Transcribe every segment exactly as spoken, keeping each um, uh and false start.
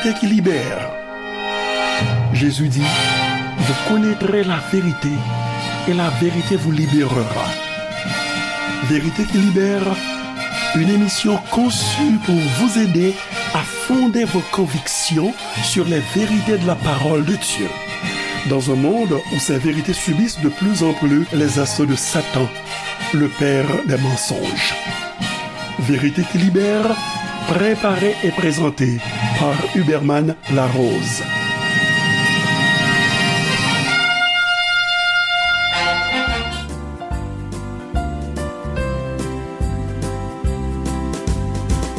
Vérité qui libère. Jésus dit, vous connaîtrez la vérité et la vérité vous libérera. Vérité qui libère, une émission conçue pour vous aider à fonder vos convictions sur les vérités de la parole de Dieu. Dans un monde où ces vérités subissent de plus en plus les assauts de Satan, le père des mensonges. Vérité qui libère, préparée et présentée par Huberman Larose.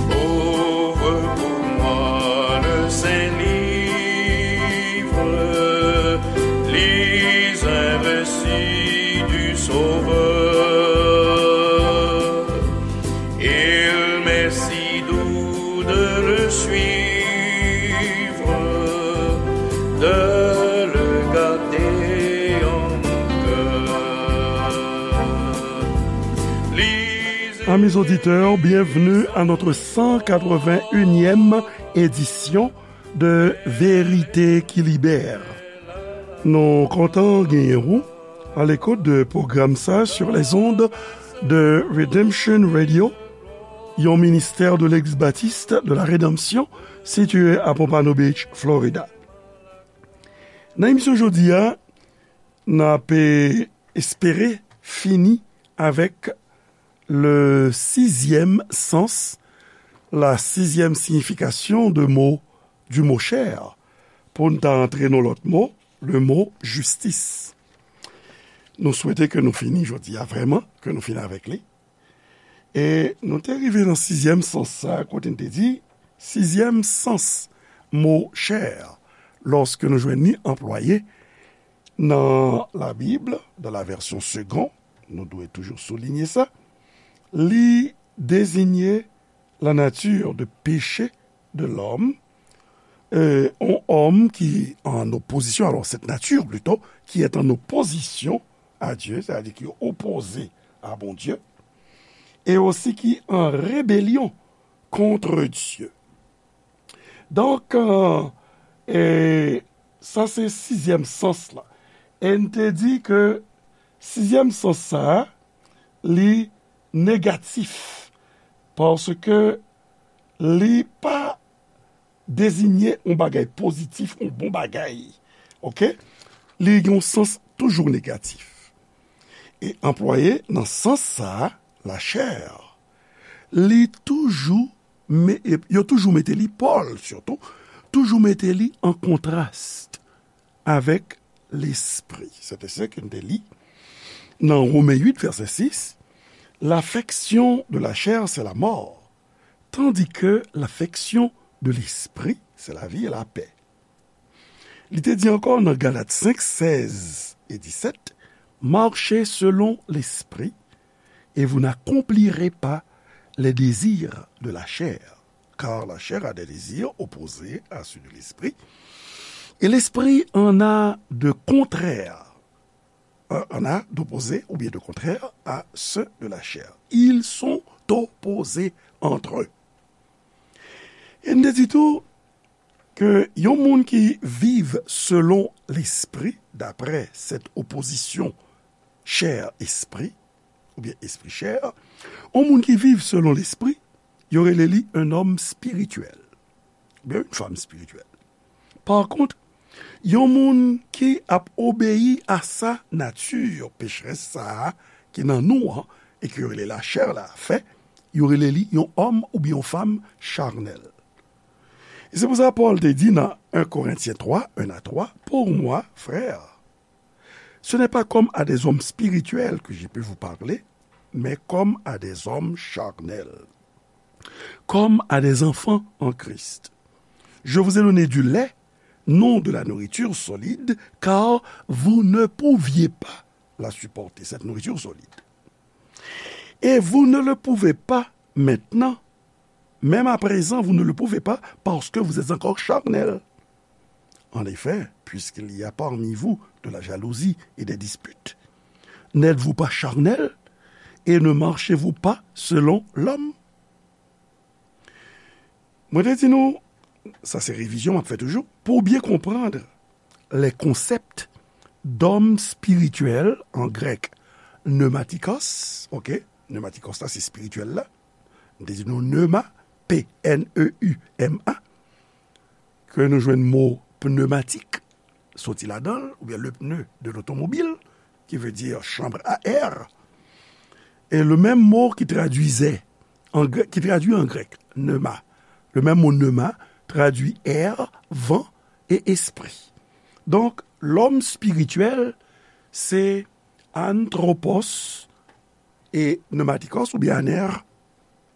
Ouvre pour moi le Saint-Livre, lis un récit du Sauveur. Il m'est si doux de le suivre, de le garder en mon cœur. Amis auditeurs, bienvenue à notre cent quatre-vingt-unième édition de Vérité qui libère. Nou kontan genyen ou à l'écoute de programme sa sur les ondes de Redemption Radio, yon ministère de l'Église Baptiste de la Rédemption situé à Pompano Beach, Florida. Nan emisyon jodi a, n ap espere fini avec le sixième sens, la sixième signification de mot, du mot chair. Pou n ta antre nan lòt mo, le mot justice. Nou swete ke nou fini jodi a, vrèman, ke nou fini avèk li. E nou te rive nan sizyèm sans sa, kote n te di, sizyèm sans mo chair, lòske nou jwenn li anplwaye nan Labib, dans la version Segond, nou dwe toujou soulinye sa, li dezinye la nature de péché de l'homme, euh, un homme qui en opposition, alors cette nature plutôt, qui est en opposition à Dieu, c'est-à-dire qui est opposé à Bondye, e osi ki an rebelyon kont Dye. Donk, euh, e sa se sizyèm sans la. E n te di ke sizyèm sans sa a, li negatif, paske li pa dezinye yon bagay pozitif, yon bon bagay. Oke? Li gen yon sans toujou negatif. E anplwaye nan sans sa a, la chair, li toujou, me-, e, yo toujou mete li, Pòl sitou, toujou mete li an kontras avèk lespri. Se te sa ke n te li nan Women uit, vèsè sis, l'affection de la chair, c'est la mort, tandis que l'affection de l'esprit, c'est la vie et la paix. Li te di ankò nan Galat senk, sèz e disèt, marchez selon l'esprit, et vous n'accomplirez pas les désirs de la chair, car la chair a des désirs opposés à ceux de l'esprit, et l'esprit en a de contraires, euh, en a d'opposés ou bien de contraires à ceux de la chair. Ils sont opposés entre eux. E n te di tou ke yon moun ki viv selon lespri, d'après cette opposition chair-esprit, oubyen espri chè, yon moun ki viv selon lespri, yo rele li un homme spirituel, oubyen une femme spirituelle. Par contre, yon moun ki ap obeyi a sa nati pecherès sa a ki nan nou an, e ke yo rele lachè la, fè, yo rele li yon òm oubyen yon fanm chanèl. E se pou sa Pòl te di nan un Corinthiens trois, un à trois, pour moi, frères, ce n'est pas comme à des hommes spirituels que je peux vous parler, mais comme à des hommes charnels, comme à des enfants en Christ. Je vous ai donné du lait, non de la nourriture solide, car vous ne pouviez pas la supporter, cette nourriture solide. Et vous ne le pouvez pas maintenant, même à présent, vous ne le pouvez pas, parce que vous êtes encore charnel. En effet, puisqu'il y a parmi vous de la jalousie et des disputes, n'êtes-vous pas charnel et ne marchez-vous pas selon l'homme? Mwen te di nou, Sa se revizyon m ap fè toujou. Pou byen konprann les concepts d'homme spirituel, en grec pneumatikos, ok, pneumatikos la se espirityèl la, m te di nou pneuma, P N E U M A, ke nou jwenn mo pneumatique, soti ladan l, oubyen le pneu de l'automobile, qui veut dire chambre à air. Et le même mot qui traduisait en grec, qui traduit en grec pneuma, le même mot pneuma traduit air, vent et esprit. Donc, l'homme spirituel, c'est anthropos et pneumatikos, oubyen aner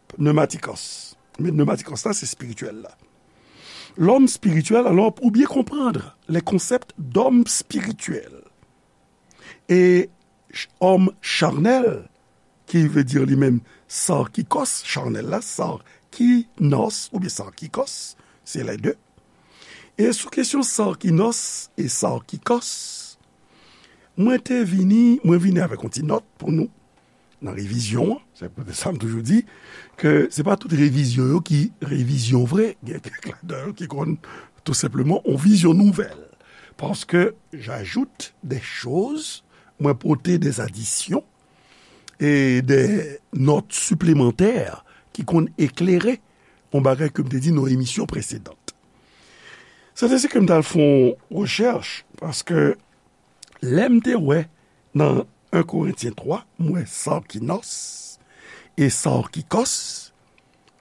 pneumatikos. Men pneumatikos la, se espirityèl la. L'homme spirituel, alors, pour bien comprendre les concepts d'homme spirituel et ch- homme charnel, ki vle di li menm sarkikos, charnel la, sarkinos oubyen sarkikos, se les deux. E sou kesyon sarkinos e sarkikos, mwen te vini, mwen vini avèk yon ti nòt pou nou nan revizyon an. Se poutèt sa m toujou di ke se pa tout revizyon yo ki revizyon vre. Gen kèk ladan yo ki konn tou senpleman yon vizyon nouvèl. Parce que j'ajoute des choses, mwen pote des additions et des notes supplémentaires ki konn eklere yon bagay ke m te di nan emisyon presedan. Se te si ke m t al fè yon rechèch, paske lè m te wè nan en Korentyen twa, m wè sarkinos e sarkikos,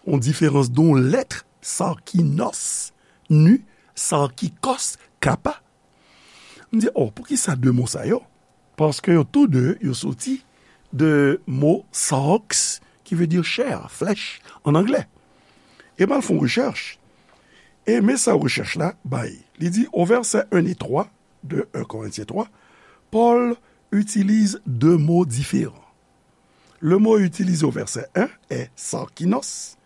yon diferans de yon lèt, sarkinos, nu, sarkikos, kappa. M di, oh, poukisa de mo sa yo? Paske yo tou de, yo soti de mo sarx, ki vle di chè, flèch, an anglè. E m al fè yon rechèch. E men sa rechèch la bay. Li di, au verset un et trois de un Corinthiens trois, Paul utilise deux mots différents. Le mot utilisé au verset un est sarkinos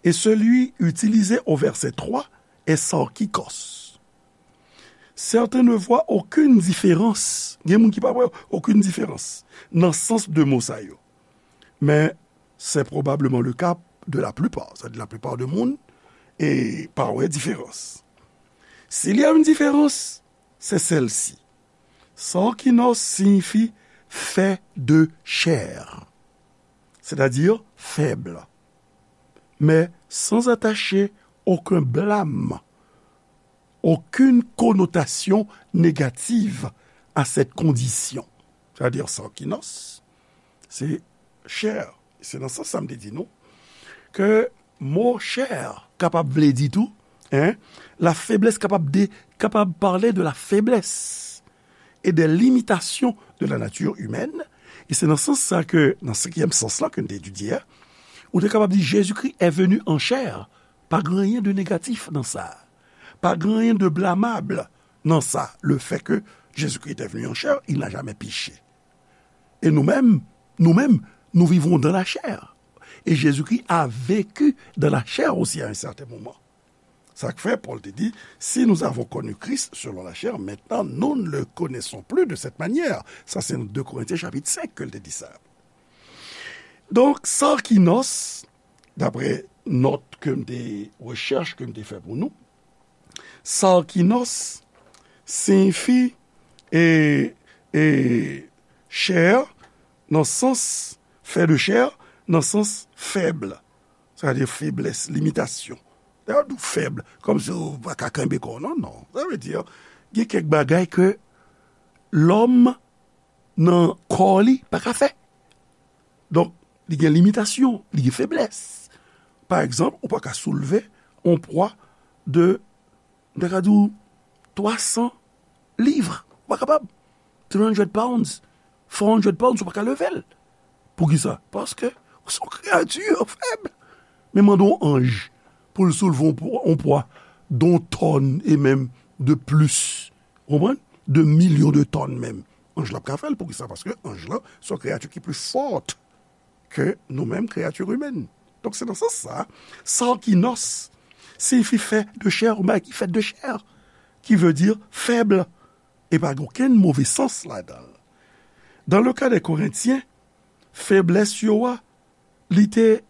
et celui utilisé au verset trois est sarkikos. Certains ne voient aucune différence. Gen moun ki pa wè okenn diferans nan sans de mo sa yo. Men c'est probablement le cas de la plupart. Sa di laplipa de moun e pa wè diferans. S'il y a une différence, c'est celle-ci. Sarkinos signifie fait de chair, c'est-à-dire faible, mais sans attacher aucun blâme, aucune connotation négative à cette condition. C'est-à-dire, sarkinos, se chè. Se nan sans sa m te di nou ke mo chè kapab vle di tou, hein, la faiblesse kapab de, kapab pale de la faiblesse et des limitations de la nature humaine. E se nan sans sa ke, nan senkyèm sans la ke n te etidye a, ou te kapab di Jésus-Christ est venu en chair. Pa gen anyen de negatif nan sa. Pa gen anyen de blamab nan sa. Le fait que Jésus-Christ est venu en chair, il n'a jamais péché. Et nous-mêmes, nous-mêmes, nous vivons dans la chair. Et Jésus-Christ a vécu dans la chair aussi à un certain moment. Sa k fè Pòl te di, si nous avons connu Christ selon la chair, maintenant nous ne le connaissons plus de cette manière. Sa se nan de Korentyen chapit senk ke l te di sa. Donk, sarkinos, daprè nòt ke m te, rechèch ke m te fè pou nou, sarkinos siyifi e, e chè nan sans, fè de chè nan sans fèb. Sa vle di feblès, limitasyon. Lè yo di w fèb, kòmsi w pa ka kenbe kò w, non, non. Sa vle di, gen kèk bagay ke lòm nan kò li pa ka fè. Donk, li gen limitasyon, li gen feblès. Pa egzanp, ou pa ka soulve yon pwa de, m ta ka di w, twa san liv. Ou pa kapab. Three hundred pounds, four hundred pounds, ou pa ka leve l. Poukisa? Paske ou se yon kreyati fèb. Men mande yon anj pou l soulve yon pwa, yon pwa de yon tòn e menm de plis. Ou konprann? De milyon de tòn menm. Anj la p ka fè l. Poukisa? Paske anj la se yon kreyati ki pli fò ke nou menm, kreyati imèn. Donk, se nan sans sa, sarkinos siyifi fè de chè, yon bagay ki fèt de chè, ki vle di fèb, e pa gen okenn move sans ladan l. Dans le cas des Corinthiens, feblès yo a, li te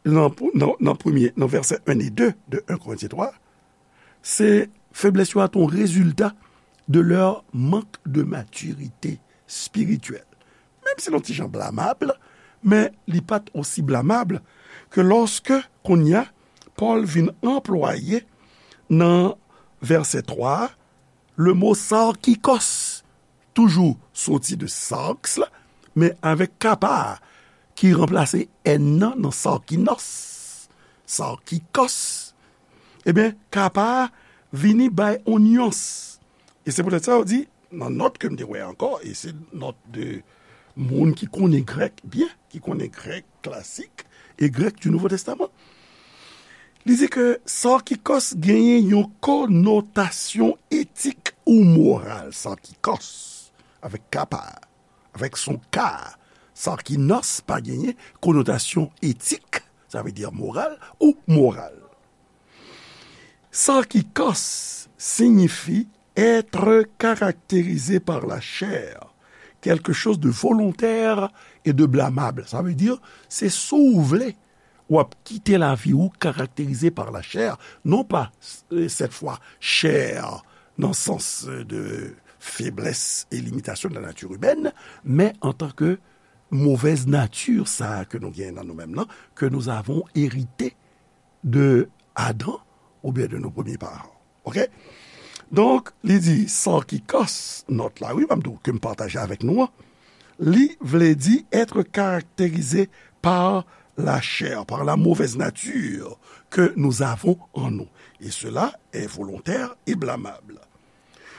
nan, nan, nan premye, nan vèsè en e de de en Korentyen twa, Se feblès yo a te yon rezilta de leur manque de maturité spirituelle. Menm si l yon ti jan blamab, men li pa t osi blamab ke lòske kounye a Pòl vin anplwaye nan vèsè twa a, le mo sarkikos, toujou soti de sarx la, men avèk kapa a ki ranplase n nan nan sarkinos, sarkikos. Ebyen, kapa a vini bay yon nyans. E se poutèt sa yo di, nan nòt ke m te wè ankò, e se nòt de moun ki konnen grèk byen, ki konnen grèk klasik e grèk du Nouveau Testament, li di ke sarkikos genyen yon konotasyon etik ou moral, sarkikos, avèk kapa, avèk son ka, sarkinos pa genyen konotasyon etik, sa vle di moral ou moral. Sarkikos siyifi être caractérisé par la chair, quelque chose de volontaire et de blâmable. Sa vle di, se si w vle, w ap kite lavi ou karakterize par la chair, non pa, euh, cette fois, chair, nan sans, euh, de faiblesse et limitation de la nature humaine, men an tan ke mauvaise nature, sa ke nou gen nan nou menm nan, que nous avons hérité de Adam oubyen de nos premiers parents. Ok? Donk, li di, sarkikos, nòt la, wi, m ap di w ke m pataje avèk nou an, li vle di être caractérisé par la chair, par la mauvaise nature que nous avons en nous. Et cela est volontaire et blâmable.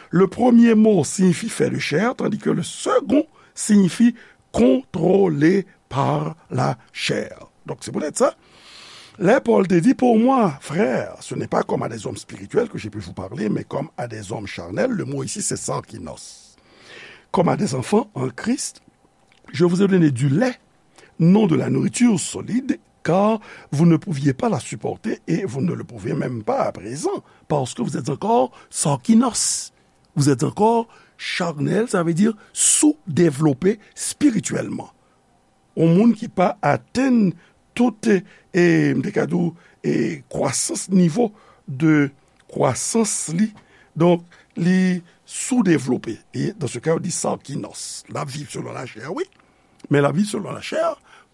Le premier mot signifie fait de chair, tandis que le second signifie contrôlé par la chair. Donk, se poutèt sa, lè Pòl te di, pour moi, frères, ce n'est pas comme à des hommes spirituels que j'ai pu vous parler, mais comme à des hommes charnels, le mot ici, c'est sarkinos. Comme à des enfants en Christ, je vous ai donné du lait, non de la nourriture solide, car vous ne pouviez pas la supporter et vous ne le pouvez même pas à présent, parce que vous êtes encore sarkinos. Vous êtes encore charnel, ça veut dire sous-développé spirituellement. Yon moun ki pa atenn tout, e, m te ka di w, e, kwasans, nivo de kwasans li. Donk, li soudevlope. E, dans ce cas, yo di sarkinos. L ap viv selon lachè, wi. Men l ap viv selon lachè,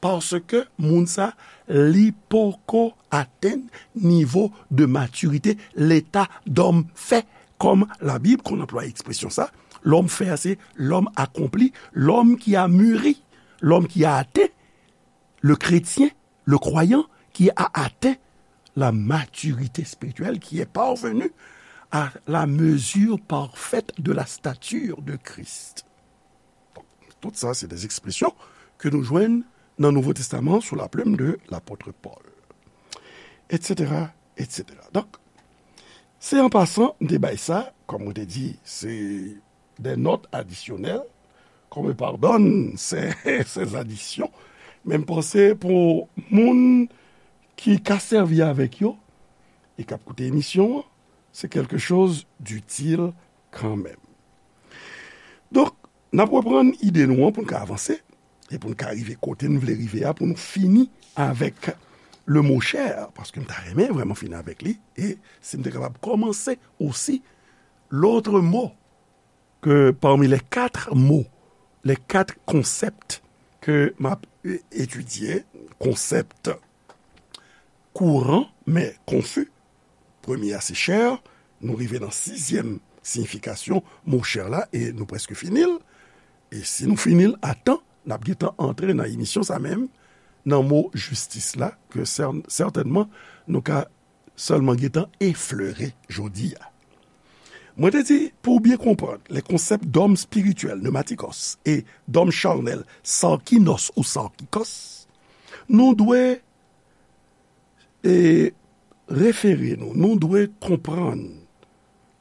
paske moun sa, li poko atenn nivo de matirite, leta dòm fè. Kòm Labib konn anplwaye ekspresyon sa, lòm fè a se lòm akonpli, lòm ki a mûri, lòm ki a aten, le chrétien, le croyant qui a atteint la maturité spirituelle, qui est parvenu à la mesure parfaite de la stature de Christ. Tout sa, se de ekspresyon ke nou jwenn nan Nouvo Testaman sou la plume de l'apôtre Paul, et cetera, et cetera. Donk, se an pasan, m te bay sa, kòm mwen te di, se de nòt adisyonèl, qu'on me pardonne ces, ces additions, men m panse pou moun ki ka sèvi avèk yo e k ap koute emisyon an, se quelque chose d'utile kanmenm. Donk, n ap reprann ide nou an pou n ka avanse e pou n ka rive kote n vle rive a, pou nou fini avèk le mot chair, paske m ta renmen vrèman fini avèk li, e si m te kapab kòmanse osi, l'autre mot que parmi les quatre mots, les quatre concepts que m ap, euh, étudier, konsèp kouran, men konfi. Premye a se chair, nou rive nan sizyèm siyifikasyon mo chair la, e nou prèske fini l. E si nou fini l a tan, n ap gentan antre nan emisyon sa menm, nan mo jistis la, ke sè-, sètènman nou ka sèlman gentan eflere jodi a. Mwen te di, pou w byen konprann les concepts d'homme spirituel, pneumatikos, e d'homme charnel, sarkinos ou sarkikos, nou dwe, e, refere nou, nou dwe konprann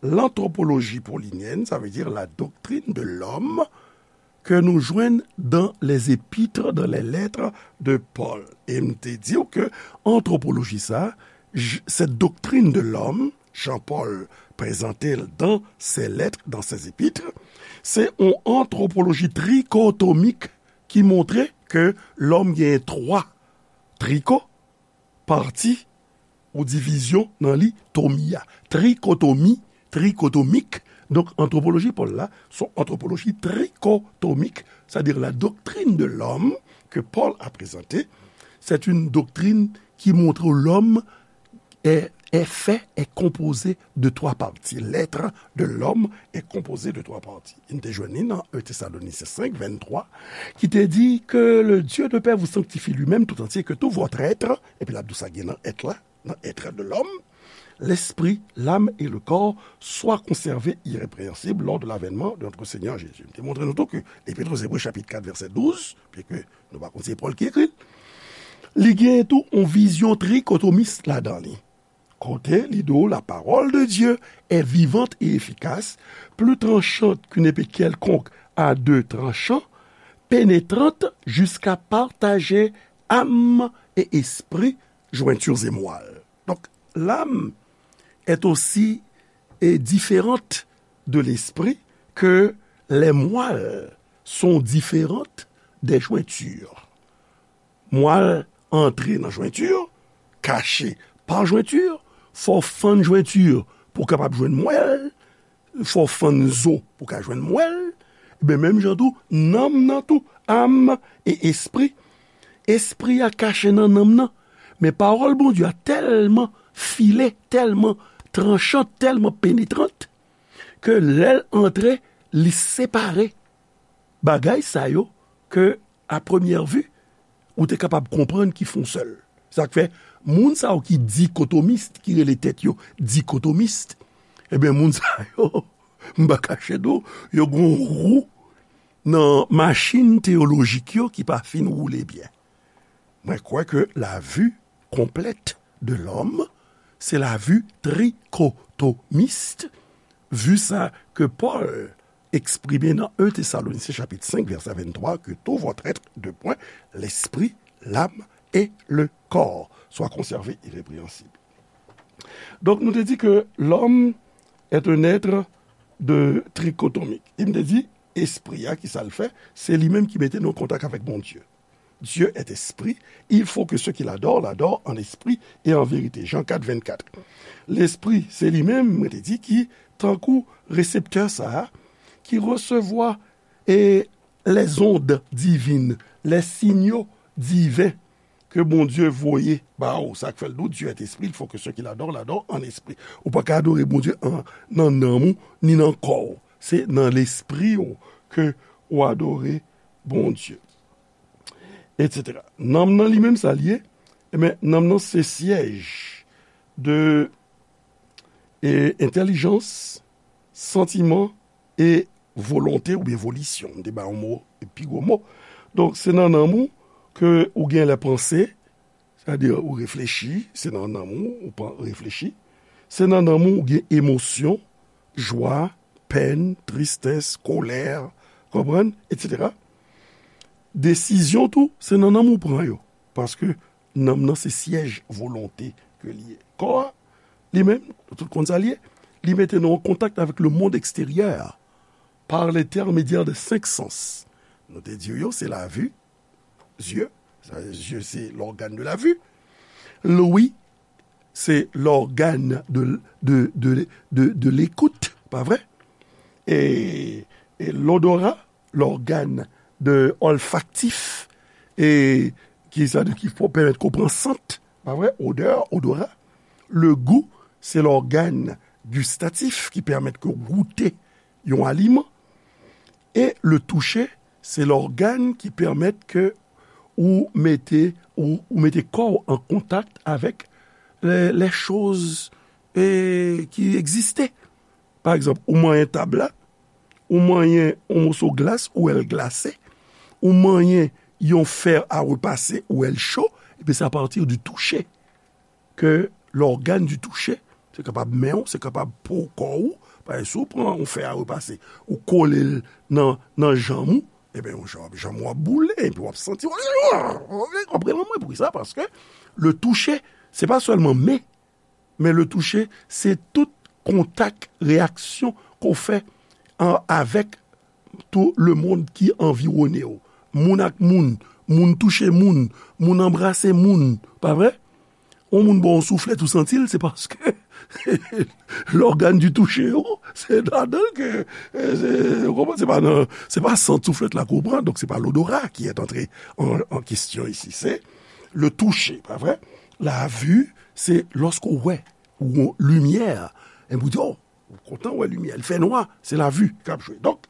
l'anthropologie paulinyèn, sa vle di la doctrine de l'homme, ke nou jwenn dans les épîtres, dans les lettres de Paul. E m te di w ke antwopoloji sa, j-, cette doctrine de l'homme, Jean-Paul prezante l dans ses lettres, dans ses épîtres, se yon antwopoloji trikotomik ki montre ke lòm gen twa triko, pati, yon divizyon nan li, tomi a. Trikotomi, trikotomik. Donk, antwopoloji Pòl la, se yon antwopoloji trikotomik, c'est-à-dire la doctrine de l'homme que Paul a présentée, c'est une doctrine qui montre l'homme est, est fait, est composé de trois parties. L'être de l'homme est composé de trois parties. Nou te jwenn li nan un Thessaloniciens cinq, vingt-trois, ki te di que le Dieu de paix vous sanctifie lui-même tout entier, que tout votre être, epi l ap di w sa gen nan èt la, nan être de l'homme, l'esprit, l'âme et le corps soient conservés irrépréhensibles lors de l'avènement de notre Seigneur Jésus. M te montre nou tou ke Lepit aux Hébreux, chapit kat, vèsè douz, byenke nou pa konn se Pòl ki ekri l, li gen tou yon vizyon trikotomis ladan li. Kote li di w, la parole de Dieu est vivante et efficace, plus tranchante qu'une épée quelconque à deux tranchants, pénétrante jusqu'à partager âme et esprit, jointures et moelle. Donc, l'âme est aussi, est différente de l'esprit que les moelles sont différentes des jointures. Mwal antre nan jwenti, kache pa jwenti, fò w fann jwenti pou w kapab jwenn mwèl, fò w fann zo pou w ka jwenn mwèl. Ebyen, menm jan tou, nanm nan tou, âme et esprit, espri a kache nan nanm nan. Men pawòl Bondye a tèlman file, tèlman tranchan, tèlman penetrant, ke lè l antre, li separe bagay sa yo ke, a premyè vi, ou te kapab konprann ki fon sèl. Sa k fè, moun sa yo ki dikotomis, ki rele tèt yo dikotomis, ebyen, moun sa yo, m pa kache di w, yo gen yon wou nan machin teyolojik yo ki pa fin woule byen. Mwen kwè ke la vue complète de l'homme, se la vue trichotomiste, vue sa ke Pòl eksprime nan un Thessaloniciens chapitre cinq, verset vingt-trois, que tout votre être de point, l'esprit, l'âme et le corps, soit conservé irrépréhensible. Donk, nou te di ke l'homme est un être de trichotomique. E m te di, espri a, ki sa l fè? Se li menm ki mete nou an kontak avèk Bondye. Dieu est esprit, il faut que ceux qui l'adorent l'adorent en esprit et en vérité. Jean quatre, vingt-quatre. Lespri, se li menm, mwen te di, ki tankou reseptè sa a, ki resevwa e les ondes divines, les signaux divins ke Bondye voye ba ou. Sa k fè l di w, Dieu est esprit, il faut que ceux qui l'adorent l'adorent en esprit. Ou pa ka adore Bondye an, nan nanm ou, ni nan kò w. Se nan lespri w ke ou adore Bondye. Etsetera. Nanm nan li menm sa l ye? Ebyen, nanm nan se syèj de, e, entèlijans, santiman e volonte oubyen volisyon. M te ba yon mo, pi gwo mo. Donk, se nan nanm ou ke ou gen lè panse, sètadi ou reflechi, se nan nanm ou, ou pa reflechi. Se nan nanm ou, ou gen emosyon, jwa, pèn, tristès, kolè, konprann, etsetera. Desizyon tou, se nan nanm ou pran yo. Paske nanm nan se syèj volonte ke li ye. Kò a, li menm, nou tout konn sa li ye, li mete nou an kontak avèk le monde extérieur par l'intermédiaire de senk sans. Nou te di yo, se la vue, zye, sa, zye se l'organe de la vue. Lwi, se l'organe de, de, de, de, de l'écoute, pa vre? E, e l'odorat, l'organe de olfaktif, e ki sa, ki pou pèmèt ke w pran sant, pa vre? Odè, odorat. Le goût, se l'organe gustatif ki pèmèt ke w goute yon aliman. E le toucher, se l'organe ki pèmèt ke ou mete, ou, ou mete kò w an kontak avèk les, les choses, e, ki egziste. Pa egzanp, ou manyen tab la, ou manyen yon moso glas, ou wè l glase, ou manyen yon fer à repasser, ou wè l cho, epi se à partir du toucher ke l'organe du toucher, se kapab men w, se kapab po kò ou, pa egzanp, si w pran yon fer à repasser, ou kole l nan, nan janm ou, ebyen, yon janm, janm w ap boule, epi w ap santi, w ap rele anmwe pou sa, paske le toucher, se pa sèlman men, men le toucher, se tout kontak, reyaksyon ke w fè an, avèk tout le monde ki anviwone w. Moun ak moun, moun touche moun, moun anbrase moun, pa vre? yon moun ba w yon souflèt ou santi l, se paske lògàn di touche yo, se ladan l ke, e, se, ou konprann, se pa nan, se pa sant souflèt la ke w pran, donk se pa l'odorat qui est entré en, en question ici, c'est le toucher, pa vre? La vue, se lòske w wè, ou limyè, e pou di, oh, ou kontan wè limyè, li fè nwa, se la vue k ap jwe. Donk,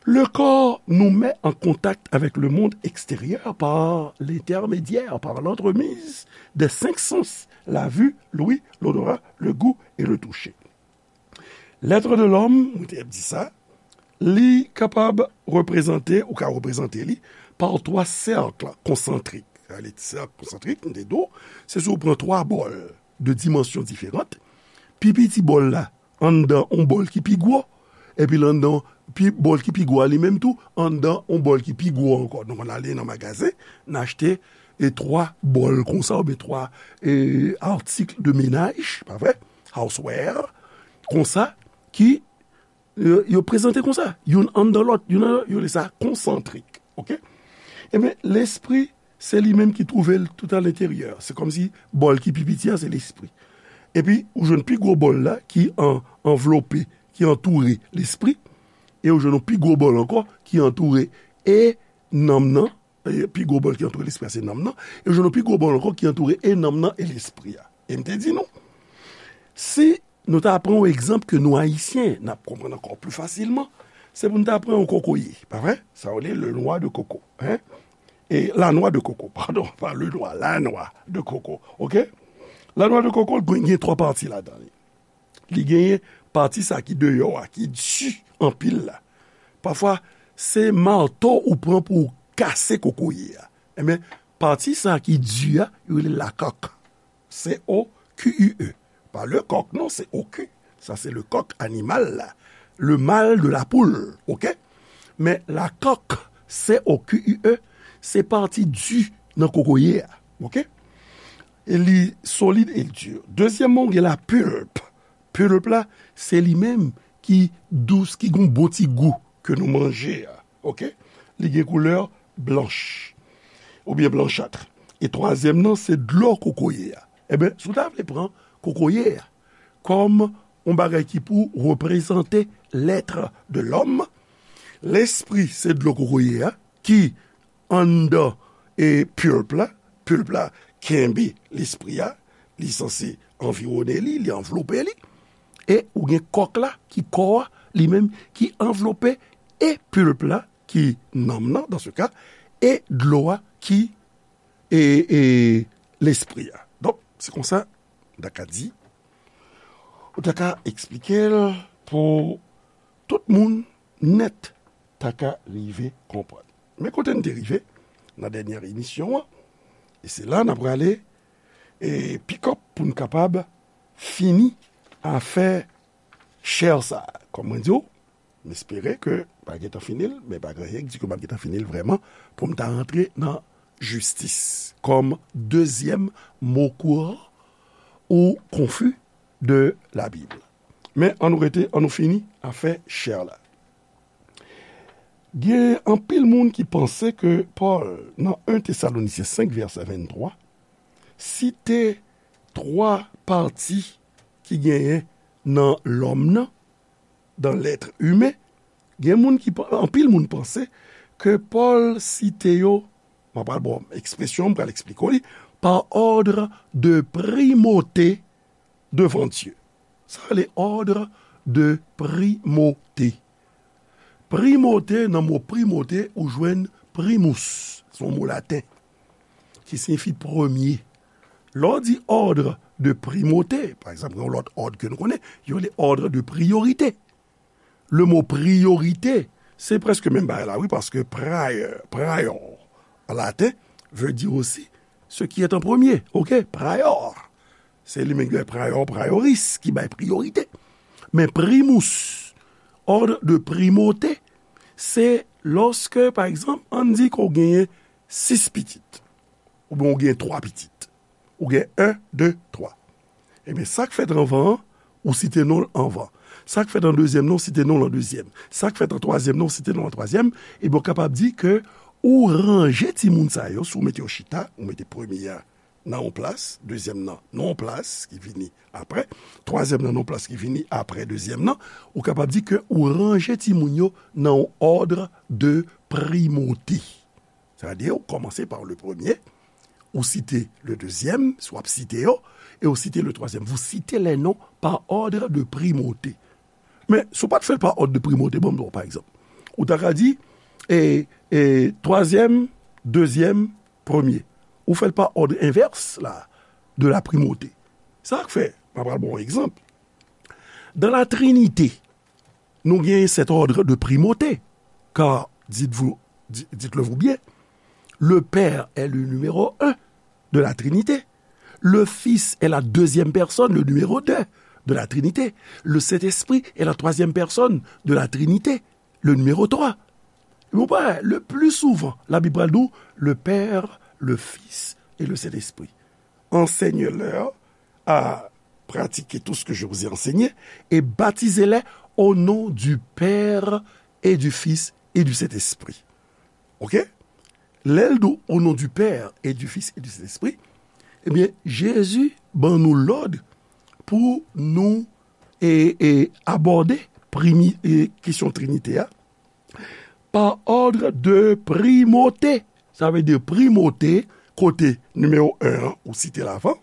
le corps nous met en contact avec le monde extérieur par l'intermédiaire, par l'entremise des cinq sens, la vue, l'ouïe, l'odorat, le goût et le toucher. L'être de l'homme, mwen te ap di sa, li kapab reprezante, ou ka reprezante li, par twa sèk konsantrik. Sa vle di sèk konsantrik, m te di w, se si w pran twa bòl de dimansyon diferan, pi piti bòl la anndan yon bòl ki pi gwo, epi l anndan pi, bòl ki pi gwo a li menm tou, anndan yon bòl ki pi gwo ankò. Donk, n ale nan magazen, n achte, e, twa bòl konsa, oubyen twa, e, articles de ménage, pa vre? Houseware, konsa, ki, e, yo prezante konsa, youn anndan lòt, youn anndan lòt, yo rele sa konsantrik, oke? Ebyen, lespri, se li menm ki twouve l tout à l'intérieur. Se kòmsi bòl ki pi piti a, se lespri. Epi, ou jwenn pi gwo bòl la ki an, anvlope, ki antoure lespri, e ou jwenn yon pi gwo bòl ankò ki antoure e nanm nan, e pi gwo bòl ki antoure lespri a, se nanm nan, e ou jwenn yon pi gwo bòl ankò ki antoure e nanm nan e lespri a. E m te di nou, si nou ta pran yon egzanp ke nou Ayisyen, n ap konprann ankò pli fasilman, se pou n ta pran yon kokoye, pa vre? Sa yo rele le noix de coco, hein? E la noix de coco, padon, pa le noix, la noix de coco, oke? La noix de coco, li gen twa pati ladan li. Li genyen pati sa ki deyò a, ki di anpil la. Pafwa, se mato ou pran pou w kase kokoye a. Ebyen, pati sa ki di a, yo rele la coque. C O Q U E. Pa le coq, non, c'est au cul. Sa se le coq animal la. Le mâle de la poule, oke? Men la coque, C O Q U E, se pati di nan kokoye a, oke? E li solid e l di. Dezyèmman, ou gen la pulpe. Pulpe la, se li menm ki dous, ki gon bon ti gou ke nou manje a, oke? Li gen koulè blanch, oubyen blanchat. E twazyèm nan, se dlo kokoye a. Ebyen, si w ta vle pran kokoye a kòm yon bagay ki pou reprezante l'être de l'homme, lespri se dlo kokoye a, ki anndan, e, pulpe la. Pulpe la kenbe lespri a, li sanse anviwone li, li anvlope li. E ou gen kòk la, ki kò a, li menm, ki anvlope e pulpe la, ki nanm nan, dans ce cas, e dlo a, ki, e, e lespri a. Donk, se konsa, m ta ka di, ou ta ka eksplike l pou tout moun nèt ta ka rive konprann. Men kote n te rive nan dènyè emisyon an, e se la n ap prale, e, pick up pou n kapab fini afè chè sa. Kòm mwen di w, m espere ke pa gentan fini l, men pa gen anyen k di ke m ap gentan fini l vrèman, pou m ta rantre nan jistis kòm dezyèm mo kouran ou konfi de Labib. Men ann nou rete, ann nou fini afè chè la. Gen anpil moun ki panse ke Pòl, nan en Tesalonisyen senk vèsè venntwa, site twa pati ki genyen nan lòm nan, dans l'être humain. Gen moun ki pa-, anpil moun panse ke Pòl site yo, mwen pral ba w ekspresyon, m pral eksplike w li, par ordre de primauté devant Dieu. Sa rele ordre de primauté. Primauté, nan mo primauté, ou jwenn primus, se yon mo laten, ki siyifi premye. Lè w di ordre de primauté, pa egzanp, yon lòt òd ke nou konnen, yo rele ordre de priorité. Le mo priorité, se prèske menm bagay la, wi, paske prior, prior, an laten, veut dire aussi ce qui est en premier, oke? Prior. Se li menm ki bay prior, prioris, ki bay priyorite. Men primus, ordre de primauté, se lòske, pa egzanp, ann di ke w genyen sis pitit, oubyen w genyen twa pitit, ou gen en, de, twa. Ebyen, sa k fèt anvan an, ou site non l anvan. Sa k fèt an dezyèm nan, ou site non l an dezyèm. Sa k fèt an twazyèm nan, ou site non l an twazyèm. Ebyen, w kapab di ke ou ranje timoun sa yo, si w mete yo chita, ou mete premye a nan yon plas, dezyèm nan nan yon plas ki vini apre, twazyèm nan nan yon plas ki vini apre dezyèm nan, ou kapab di ke ou ranje timoun yo nan yon òd de primote. Sètadi, ou kòmanse pa le premye, ou site le dezyèm, si w ap site yo, e ou site le twazyèm. Vous citez les noms par ordre de primauté. Men, si w pa t fè l pa òd de primauté, ban m ba w pa egzanp. Ou ta ka di, e, e, twazyèm, dezyèm, premye. Ou fè l pa òd envès la, de la primauté. Sa k fè, m a pral ba w yon egzanp. Dans la Trinité, nous gagnons cet ordre de primauté, car, dites-vous, di- dites-le vous bien, le Père est le numéro un de la Trinité, le Fils est la deuxième personne, le numéro deux de la Trinité, le Saint-Esprit est la troisième personne de la Trinité, le numéro trois. Bon, ben, le plus souvent, la Bible nous dit le Père, le Fils et le Saint-Esprit. Enseignez-leur à pratiquer tout ce que je vous ai enseigné et baptisez-les au nom du Père et du Fils et du Saint-Esprit. Ok? Lè l di au nom du Père et du Fils et du Saint-Esprit, ebyen, Jezi ban nou lòd pou nou e, e, abòde primi, e, kesyon Trinite a pa òd de primauté. Sa vle di primauté, kote nimewo en an, ou site l avan,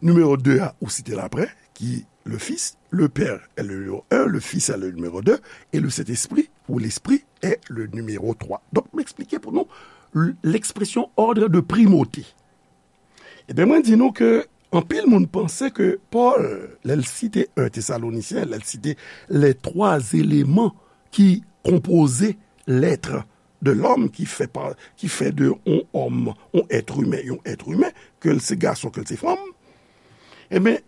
nimewo de a, ou site l apre, ki le Fils, le Père est le numéro un, le Fils est le numéro deux, et le Saint-Esprit, ou l'Esprit, est le numéro trois. Donk, m eksplike pou nou l- l'expression ordre de primauté. Ebyen, mwen di nou ke anpil moun panse ke Pòl, lè l site en Tesalonisyen, lè l site les trois éléments ki konpoze l'être de l'homme, ki fè pa, ki fè de yon òm, yon èt imen, yon èt imen, ke l se gason, ke l se fanm, ebyen,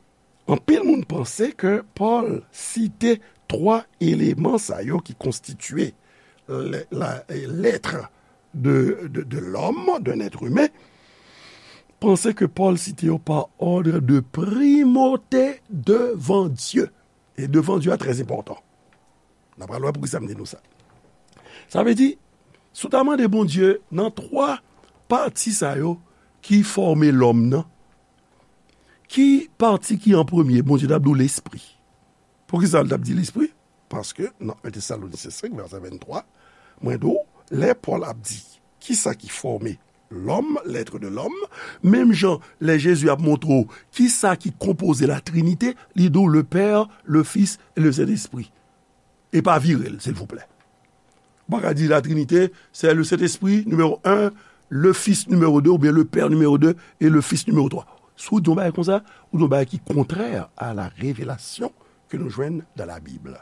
anpil moun panse ke Pòl site twa eleman sa yo ki konstitye le- la- l'être de, de, de l'homme, d'un être humain, panse ke Pòl site yo pa òd de primauté devan Dye. E devan Dye a trè enpòtan. N a pral wè poukisa m di nou sa. Sa vle di, si w ta mande Bondye nan twa pati sa yo ki fòme lòm nan, ki pati ki an premye, Bondye t ap di w lespri. Poukisa l t ap di lespri? Paske nan en Tesalonisyen senk, vèsè venntwa, mwen di w, lè Pòl ap di kisa ki fòme lòm, l'être de l'homme, menm jan lè Jezi ap montre w kisa ki konpoze la Trinite, li di w le Père, le Fils et le Saint-Esprit. E pa vire l, silvouplè. Ou pa ka di la Trinite, c'est le Saint-Esprit, numéro un, le Fils, numéro deux, oubyen le Père, numéro deux, et le Fils, numéro trois. Si w di yon bagay konsa, ou di yon bagay ki kontrè a la revelasyon ke nou jwenn dans la Bible.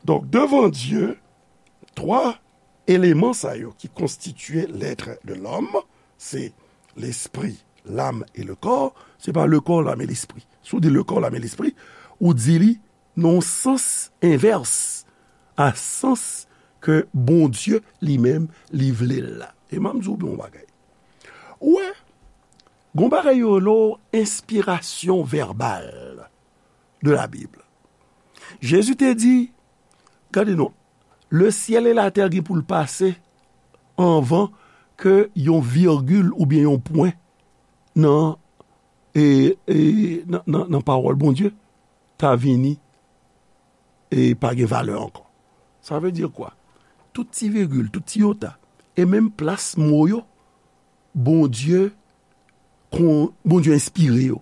Donk, devan Dye, twa eleman sa yo ki konstitye l'être de l'homme, se l'esprit, l'âme et le corps, se pa le corps, l'âme et l'esprit. Si w di le corps, l'âme et l'esprit, ou di li nan yon sans envès a sans ke Bondye li menm li vle l la. E m ap di w yon bagay. Ou wè, gon bagay yo rele w enspirasyon vèbal de la Bible. Jezi te di, gade non, le ciel et la terre gen pou l pase anvan ke yon virgil oubyen yon pwen nan, e, e, nan, nan, nan pawòl Bondye ta vini e pa gen valè ankò. Sa vle di kwa? Tout ti vigil, tout ti yota, e menm plas mo yo, Bondye, kon, Bondye enspire yo.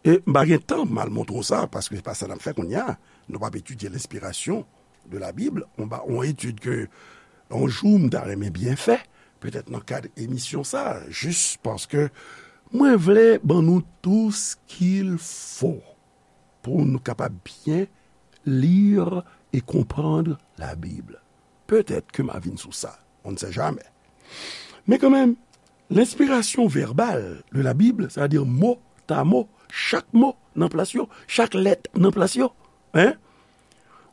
E m pa gen tan m al montre w sa, paske se pa sa n ap fè kounye a. Nou p ap etidye lenspirasyon de la Bib. On ba, on etid ke yon jou m ta renmen byen fè, petèt nan kad emisyon sa, jis paske mwen vle ban nou tout ce qu'il faut pou nou kapab byen lire et comprendre la Bible. Petèt ke m a vin sou sa, on ne sait jamais. Men kanmenm, lenspirasyon vèbal de la Bible, sètadi mo ta mo, chak mo nan plas yo, chak lèt nan plas yo, en,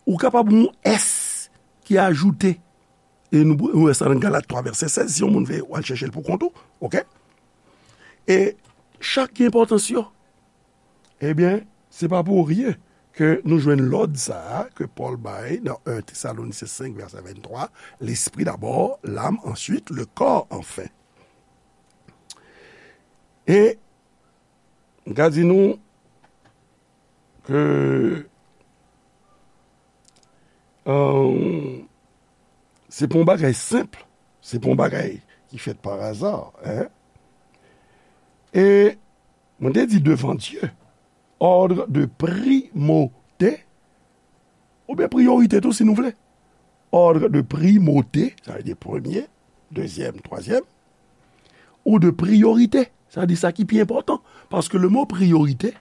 ou kapab yon S ki ajoute, e nou, nou wè sa nan Galat twa vèsè sèz, si yon moun vle, w al chèche l pou kont ou, oke? E chak gen enpòtans yo. Ebyen, se pa pou ryen ke nou jwenn lòd sa a ke Pòl bay nan en Tesalonisyen senk, vèsè venntwa, l'esprit d'abord, l'âme ensuite, le corps enfin. E m ka di nou ke, euh, se pa yon bagay senp, se pa yon bagay ki fèt pa aza, en. E mwen te di devan Dye, ordre de primauté, oubyen priyorite tou, si nou vle. Ordre de primauté, sa vle di premye, dezyèm, twazyèm, ou de priorité, sa vle di sa ki pi enpòtan. Paske le mo priyorite,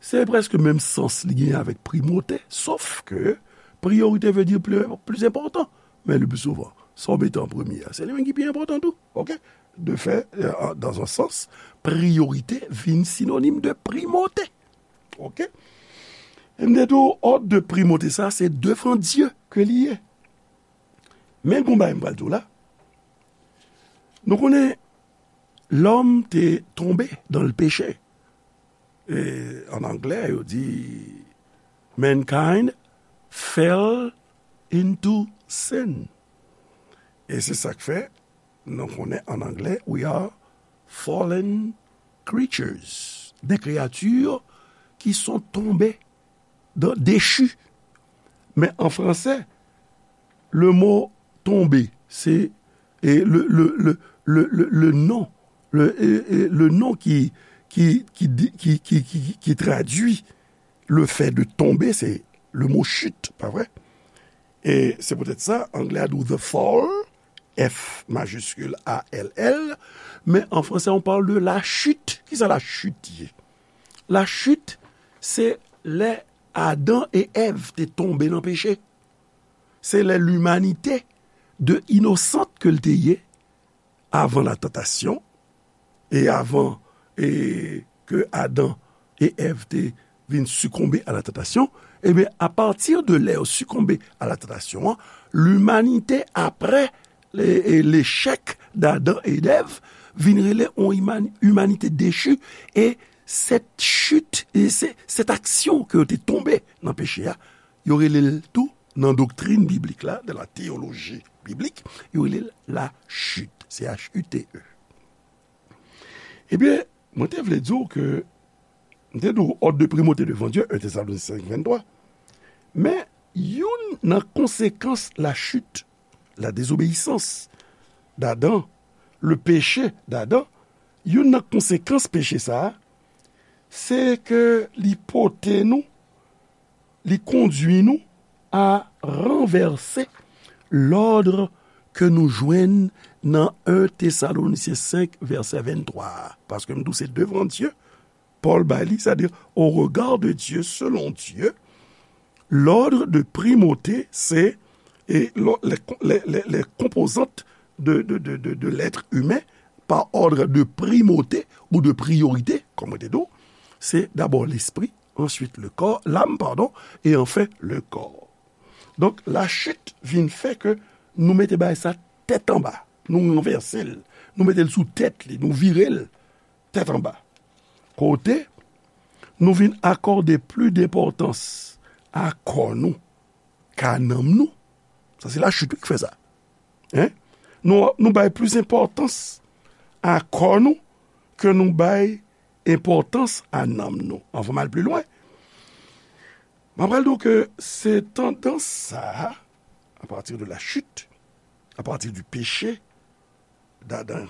se prèske menm sans li genyen avèk primauté, sof ke priyorite vle di pli, pli enpòtan. Men le pli souvan, sa w mete an premye a, se li menm ki pi enpòtan tou. Oke? De fè, euh, dans un sens, priyorite vin sinonim de primauté. Oke? E m te di w, òd de primauté sa, se devan Dye ke li ye. Men gon bagay m pral di w la. Nou konnen lòm te tonbe dans le péché. E an anglè, yo di, mankind fell into sin. E se sa k fè, nou konnen an anglè, we are fallen creatures. Des créatures qui sont tombées dans, déchues. Men an fransè, le mot tomber, se, e, le, le, le, le, le, le nom, le, e, e, le nom ki, ki, ki di, ki, ki, ki, ki tradui le fait de tomber, se le mot chute, pa vre? E se poutèt sa, anglè a di w the fall, F majuscule A L L, men an fransè, on parle de la chute. Kisa la chute ye? La chute, se lè Adan e Èv te tonbe nan peche. Se lè limanite de inosant ke l te ye avan la tantasyon, e avan, e ke Adan e Èv te vin sikonbe a la tantasyon, ebyen, apati de lè yo sikonbe a la tantasyon an, limanite, apre le, e lechèk d'Adan e d'Èv, vin rele yon iman-, imanite dechi, e sèt chit, e se, sèt aksyon ke yo te tonbe nan peche a, yo rele l tou, nan doktrin biblik la, de la teyoloji biblik, yo rele l la chute, C H U T E. Ebyen, mwen te vle di w ke, m te di w, òd de primauté devan Dye, un Thessaloniciens cinq, vingt-trois. Men, youn nan konsekans la chute, la désobéissance d'Adam, le péché d'Adam, youn nan konsekans peche sa a, se ke li pote nou, li kondui nou a ranvèse lòd ke nou jwenn nan un Thessaloniciens cinq, vèsè vennntwa a. Paske m di w se devan Dye, Pòl bay li, c'est-à-dire au regard de Dieu, selon Dieu, l'ordre de primauté, c'est, et lo-, les, les, les, les composantes de, de, de, de, de l'être humain par ordre de primauté ou de priorité, comme on dit, c'est d'abord l'esprit, ensuite le corps, l'âme, pardon, et enfin le corps. Donk, lachit vin fè ke nou mete bagay sa tèt anba. Nou ranvèse l. Nou mete l sou tèt li. Nou vire l tèt anba. Kote nou vin akòde plis denpòtans a kò nou ka nanm nou. Sa se lachit wi ki fè sa. Hein? Nou, nou bay plis enpòtans a kò nou ke nou bay enpòtans a nanm nou. Anvan m al pli lwen, m ap pral di w ke se tandans sa a, à partir de la chute, à partir du péché d'Adam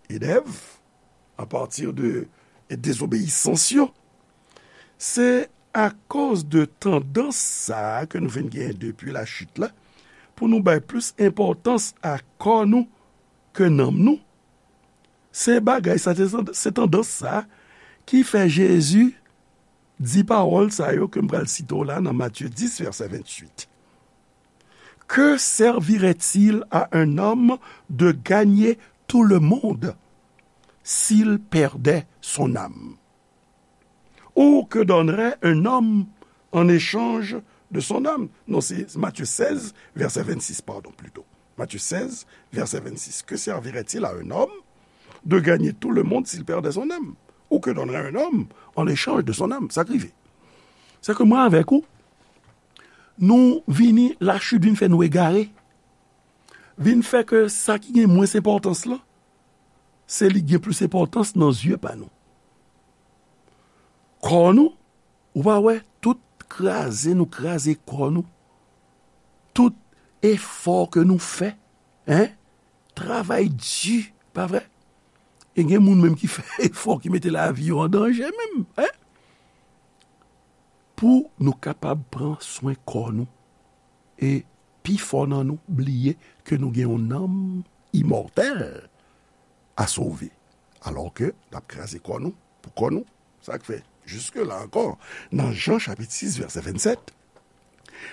et d'Ève, à partir de désobéissance yo, se akoz de tandans sa a ke nou vin genyen depi lachit la, pou nou bay plis enpòtans a kò nou ke nanm nou. Se bagay sa, se, se tandans sa ki fè Jezi di pawòl sa yo ke m pral site w la nan Matye dis, vèsè venntuit. Que servirait-il à un homme de gagner tout le monde s'il perdait son âme? Ou que donnerait un homme en échange de son âme? Non, c'est Matthieu seize, verset vingt-six, pardon, plutôt. Matthieu seize, verset vingt-six. Que servirait-il à un homme de gagner tout le monde s'il perdait son âme? Ou que donnerait un homme en échange de son âme? Sa k rive. Se ke mwen avèk ou, nou vini, lachit vin fè nou egare. Vin fè ke sa ki gen mwens enpòtans lan, se li gen plis enpòtans nan zye pa nou. Kò nou, ou pa wè, tout kraze nou kraze kò nou, tout efò ke nou fè, en, travay di, pa vre? E gen moun menm ki fè efò, ki mete lavi yo an danje menm, en, pou nou kapab pran swen kò nou. E pifò nan nou bliye ke nou gen yon nanm imòtèl a sove, alò ke n ap kraze kò nou pou kò nou. Sa k fè, jiske la ankò, nan Jan chapit sis, vèsè vennsèt,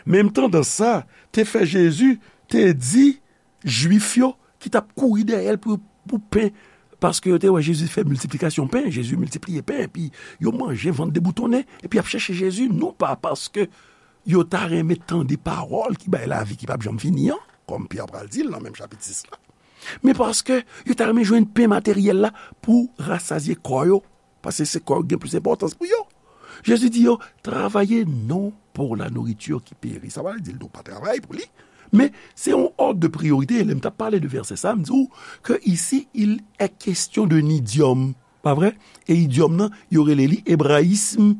menm tandans sa te fè Jezi te di Jwif yo ki t ap kouri dèyè l pou, pou pen, paske yo te wè Jezi fè miltiplikasyon pen, Jezi miltipliye pen, epi yo manje, vant deboutonnen, epi y ap chèche Jezi, non pa paske yo ta renmen tande pawòl ki bay lavi ki p ap janm fini an, kòm Pyè pral di l nan menm chapit sis la, men paske yo ta renmen jwenn pen materyèl la pou rasazye kò yo, paske se kò yo ki gen plis enpòtans pou yo. Jezi di yo, travaillez non pour la nourriture qui périt. Sa pa vle di l di w pa travay pou li, men se yon òd de priyorite. Lè m t ap pale de vèsè sa, m di w ke isi, il est question d'un idiome, pa vre? E idiòm nan, yo rele li ebrayism,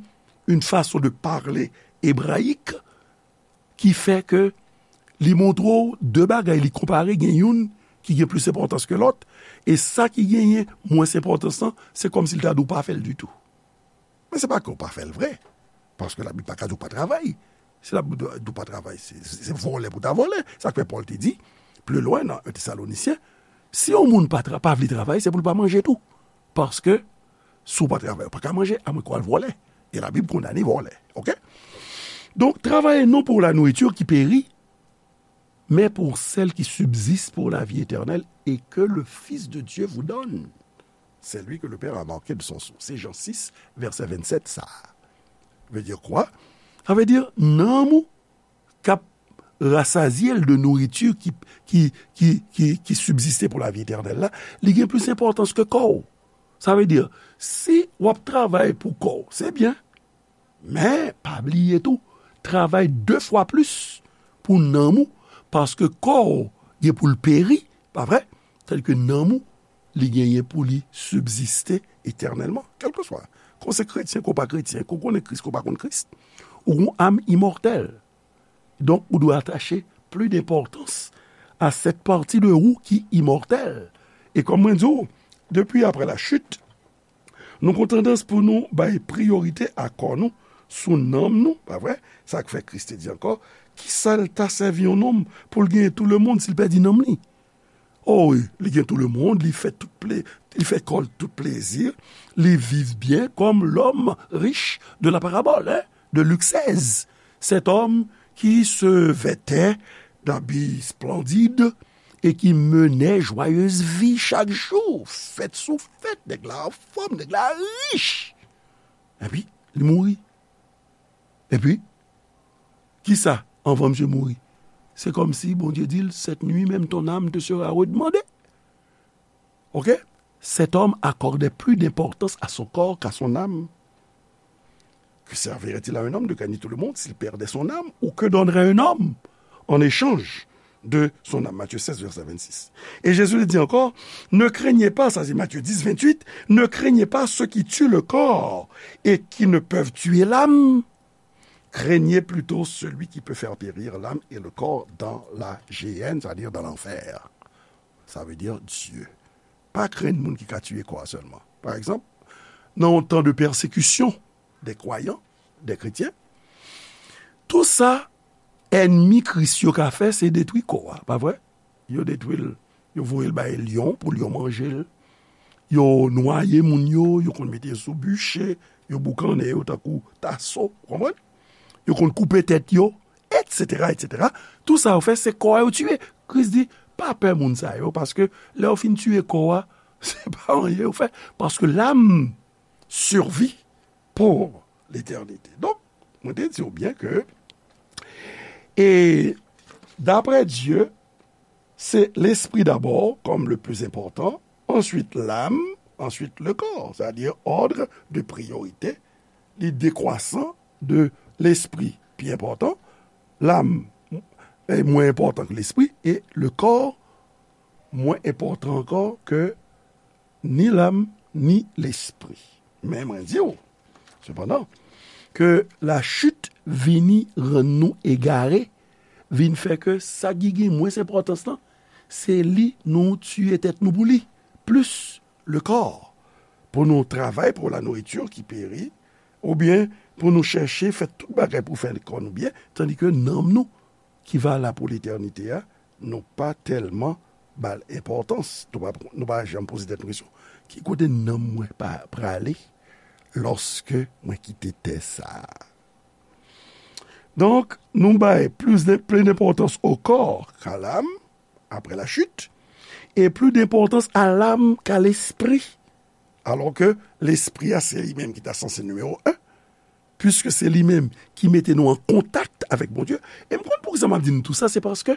une façon de parler hébraïque, ki fè ke li montre w de bagay, li konpare, gen youn ki gen plis enpòtans ke lòt, e sa ki genyen mwens enpòtans lan, se kòmsi l ta di w pa fè l ditou. Men se pa ke w pa fè l vre, paske Labib pa ka di w pa travay. Si Labib di w pa travay, se, se, se vòlè pou ta vòlè. Sa k fè Pòl te di, pli lwen nan en Tesalonisyen, si yon moun pa tra-, pa vle travay, se pou l pa manje tou. Paske, si w pa travay, ou pa ka manje, amwenke w al vòlè. E Labib kondane vòlè. Oke? Donc, travaillez non pour la nourriture qui périt, mais pour celle qui subsiste pour la vie éternelle et que le Fils de Dieu vous donne. C'est lui que le Père a marqué de son sceau. Se Jan sis, vèsè vennsèt sa. Veut dire quoi? Sa vle di, nanm ou k ap rasazye l de nouriti ki, ki, ki, ki, ki sibziste pou lavi etènèl la, li gen plis enpòtans ke kò w. Sa vle di, si w ap travay pou kò w, se byen. Men, pa bliye tou, travay de fwa plis pou nanm ou, paske kò w gen pou l peri, pa vre? Tandike nanm ou, li genyen pou li sibziste etènèlman, kèlkeswa. Ke w se kretyen, ke w pa kretyen, ke w konnen Kris, ke w pa konn Kris, ou gon am imòtèl. Donk, ou dwe atache plis denpòtans a cette partie de ou qui immortelle. E kòm mwen di w, depi apre la chute, nou gon tandans pou nou bay priyorite a kò nou sou nanm nou, pa vre? Sa k fè Kris te di ankò, kisa l ta sèvi yon nonm pou l genyen tout le monde si l pèdi nanm li? O wi, li gen tout le monde, li fè tout ple-, li fè kò l tout plezi, li viv byen comme l'homme riche de la parabole, hein, de Luc seize. Cet homme qui se vêtait d'habits splendides et qui menait joyeuse vie chaque jour. Fèt sou fèt, nèg la anfòm, nèg la rich. Epi, li mouri. Epi, kisa, anvan misye mouri? Se kòmsi Bondye di l, cette nuit même ton âme te sera redemandée. Oke? Cet homme accordait plus d'importance à son corps qu'à son âme. Que servirait-il à un homme de gagner tout le monde s'il perdait son âme? Ou que donnerait un homme en échange de son âme? Matthieu seize, verset vingt-six. Et Jésus dit encore, ne craignez pas, ça c'est Matthieu dix, vingt-huit, ne craignez pas ceux qui tuent le corps et qui ne peuvent tuer l'âme. Craignez plutôt celui qui peut faire périr l'âme et le corps dans la géhenne, c'est-à-dire dans l'enfer. Ça veut dire Dieu. Pa krenn moun ki ka tiye kò a sèlman. Pa egzanp, nan yon tan de pèsekisyon de kwayan, de kretyen, tou sa ènmi Kris yo ka fè, se detwi kò a, pa vre? Yo detwi l, yo voye l bay lyon pou lyon manje l. Yo nwaye moun yo, yo konn mete yo sou biche, yo boukannen yo tankou taso, ou konprann? Yo konn koupe tèt yo, etsetera, etsetera. Tou sa yo fè, se kò a yo tiye. Kris di, pa pè moun sa yo, paske lè yo fin tiye kò a, se pa anyen yo fè, paske l'âme survit pour l'éternité. Donk, mwen te di w byen ke, e, d'après Dieu, c'est l'esprit d'abord, comme le plus important, ensuite l'âme, ensuite le corps, c'est-à-dire ordre de priorité, li dekwasan de lespri pi enpòtan, l'âme est moins important que l'esprit, et le corps moins important encore que ni lam, ni lespri. Men mwen di w, sepandan, ke lachit vini rann nou egare, vin fè ke sa ki gen mwens enpòtans lan, se li nou tiye tèt nou pou li, plis le kò, pou nou travay pou la nourriture qui périt, oubyen pou nou chèche fè tout bagay pou fè kò nou byen, tandike nanm nou ki va la pou letènite a, nou pa tèlman ba l enpòtans. Nou pa, nou pa janm poze tèt nou kesyon, ki kote nanm mwen pa prale lòske mwen kite tè sa a? Donk, nou bay plis de, plis denpòtans o kò ka lam, apre la chit, e plis denpòtans a lam ka lespri. Alò ke lespri a, se li menm ki ta sanse nimewo en, piske se li menm ki mete nou an kontak avèk Bondye. E m konn poukisa m ap di nou tou sa, se paske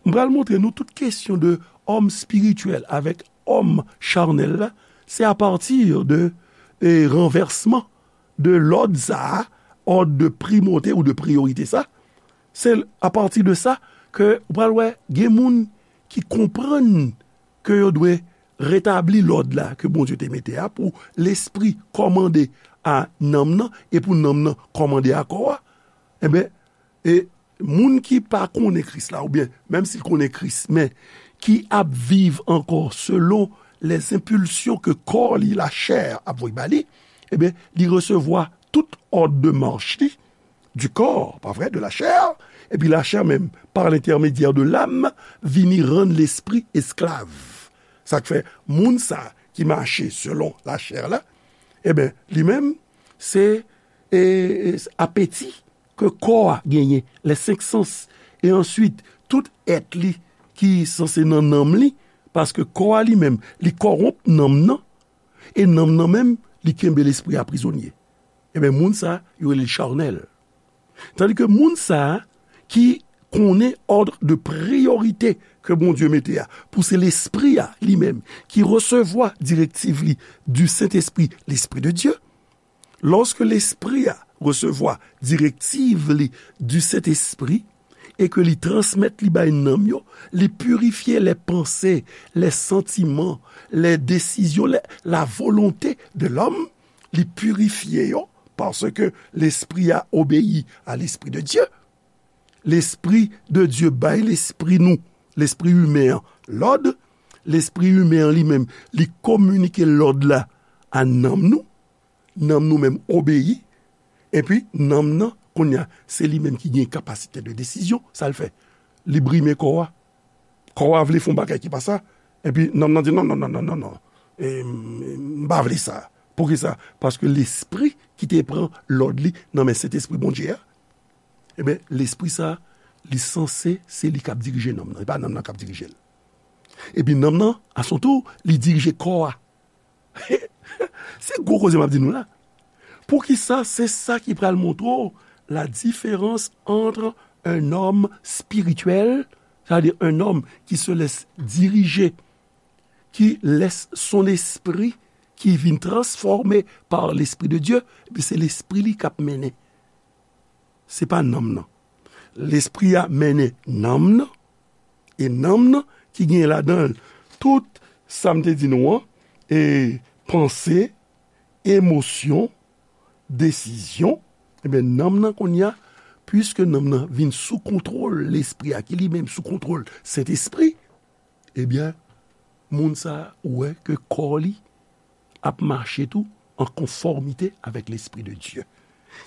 m pral montre nou tout kesyon de òm espirityèl avèk òm charnèl la, se apati de e, ranvèsman de lòd sa a, òd de primòte ou de priyorite sa, se apati de sa ke ou pral wè gen moun ki konprann ke yo dwe retabli lòd la ke Bondye te mete a pou lespri kòmande a nanm nan e pou nanm nan kòmande a kò a. Enben, e moun ki pa konnen Kris la, oubyen menm si l konnen Kris, men ki ap viv ankò selon les impulsions ke kò li, lachè, ap voye ba li, ebyen, li resevwa tout òd de mach li, du corps, pa vre, de la chair, epi lachè menm, par l'intermédiaire de l'âme, vini rann lespri esklav. Sa k fè, moun sa ki mache selon lachè la, ebyen, li menm, se e, e, apeti ke kò a genyen, les cinq sens, e answit, tout èt li ki sanse nan nanm li, paske kò a li menm, li kòwonp nanm nan, e nanm nan menm, li kenbe lespri a prizonye. Ebyen, moun sa, yo rele l charnèl. Tandike moun sa ki konnen òd de priyorite ke Bondye mete a, pou se lespri a li menm ki resevwa direktiv li du Saint-Esprit, l'Esprit de Dieu, lòske lespri a resevwa direktiv li du Saint-Esprit e ke li transmèt li bay nanm yo, li pirifye les pensées, les sentiments, les décisions, les, la volonté de l'homme, li pirifye yo, paske lespri a obeyi a l'Esprit de Dieu. Lespri de Dieu bay lespri nou, lespri imen an, lòd, lespri imen an li menm, li kominike lòd la a nanm nou, nanm nou menm obeyi, epi nanm nan, kounye a, se li menm ki gen kapasite de desizyon, sa l fè? Li brime kò a. Kò a vle fè yon bagay ki pa sa, epi nanm nan di, "Non, non, non, non, non, non. E, m, m pa vle sa." Poukisa? Paske lespri ki te pran lòd li nan men Sentespri Bondye a, ebyen, lespri sa, li sanse, se li k ap dirije nanm nan, e pa nanm nan k ap dirije l. Epi nanm nan, a son tou, li dirije kò a. Se gwo koze m ap di nou la. Poukisa? Se sa ki pral montre w la différence entre un homme spirituel, c'est-à-dire un homme qui se laisse diriger, qui laisse son esprit, ki vin transfòme par l'Esprit de Dieu, epi se lespri li k ap mennen. Se pa nanm nan. Lespri a mennen nanm nan, e nanm nan ki gen ladan l tout sa m te di nou an, e panse, emosyon, desizyon, ebyen, nanm nan kounye a, piske nanm nan vin sou kontwòl lespri a, ki li menm sou kontwòl Sentespri, ebyen, moun sa a, ou wè ke kò li ap mache tou an konfòmite avèk Lespri de Dye.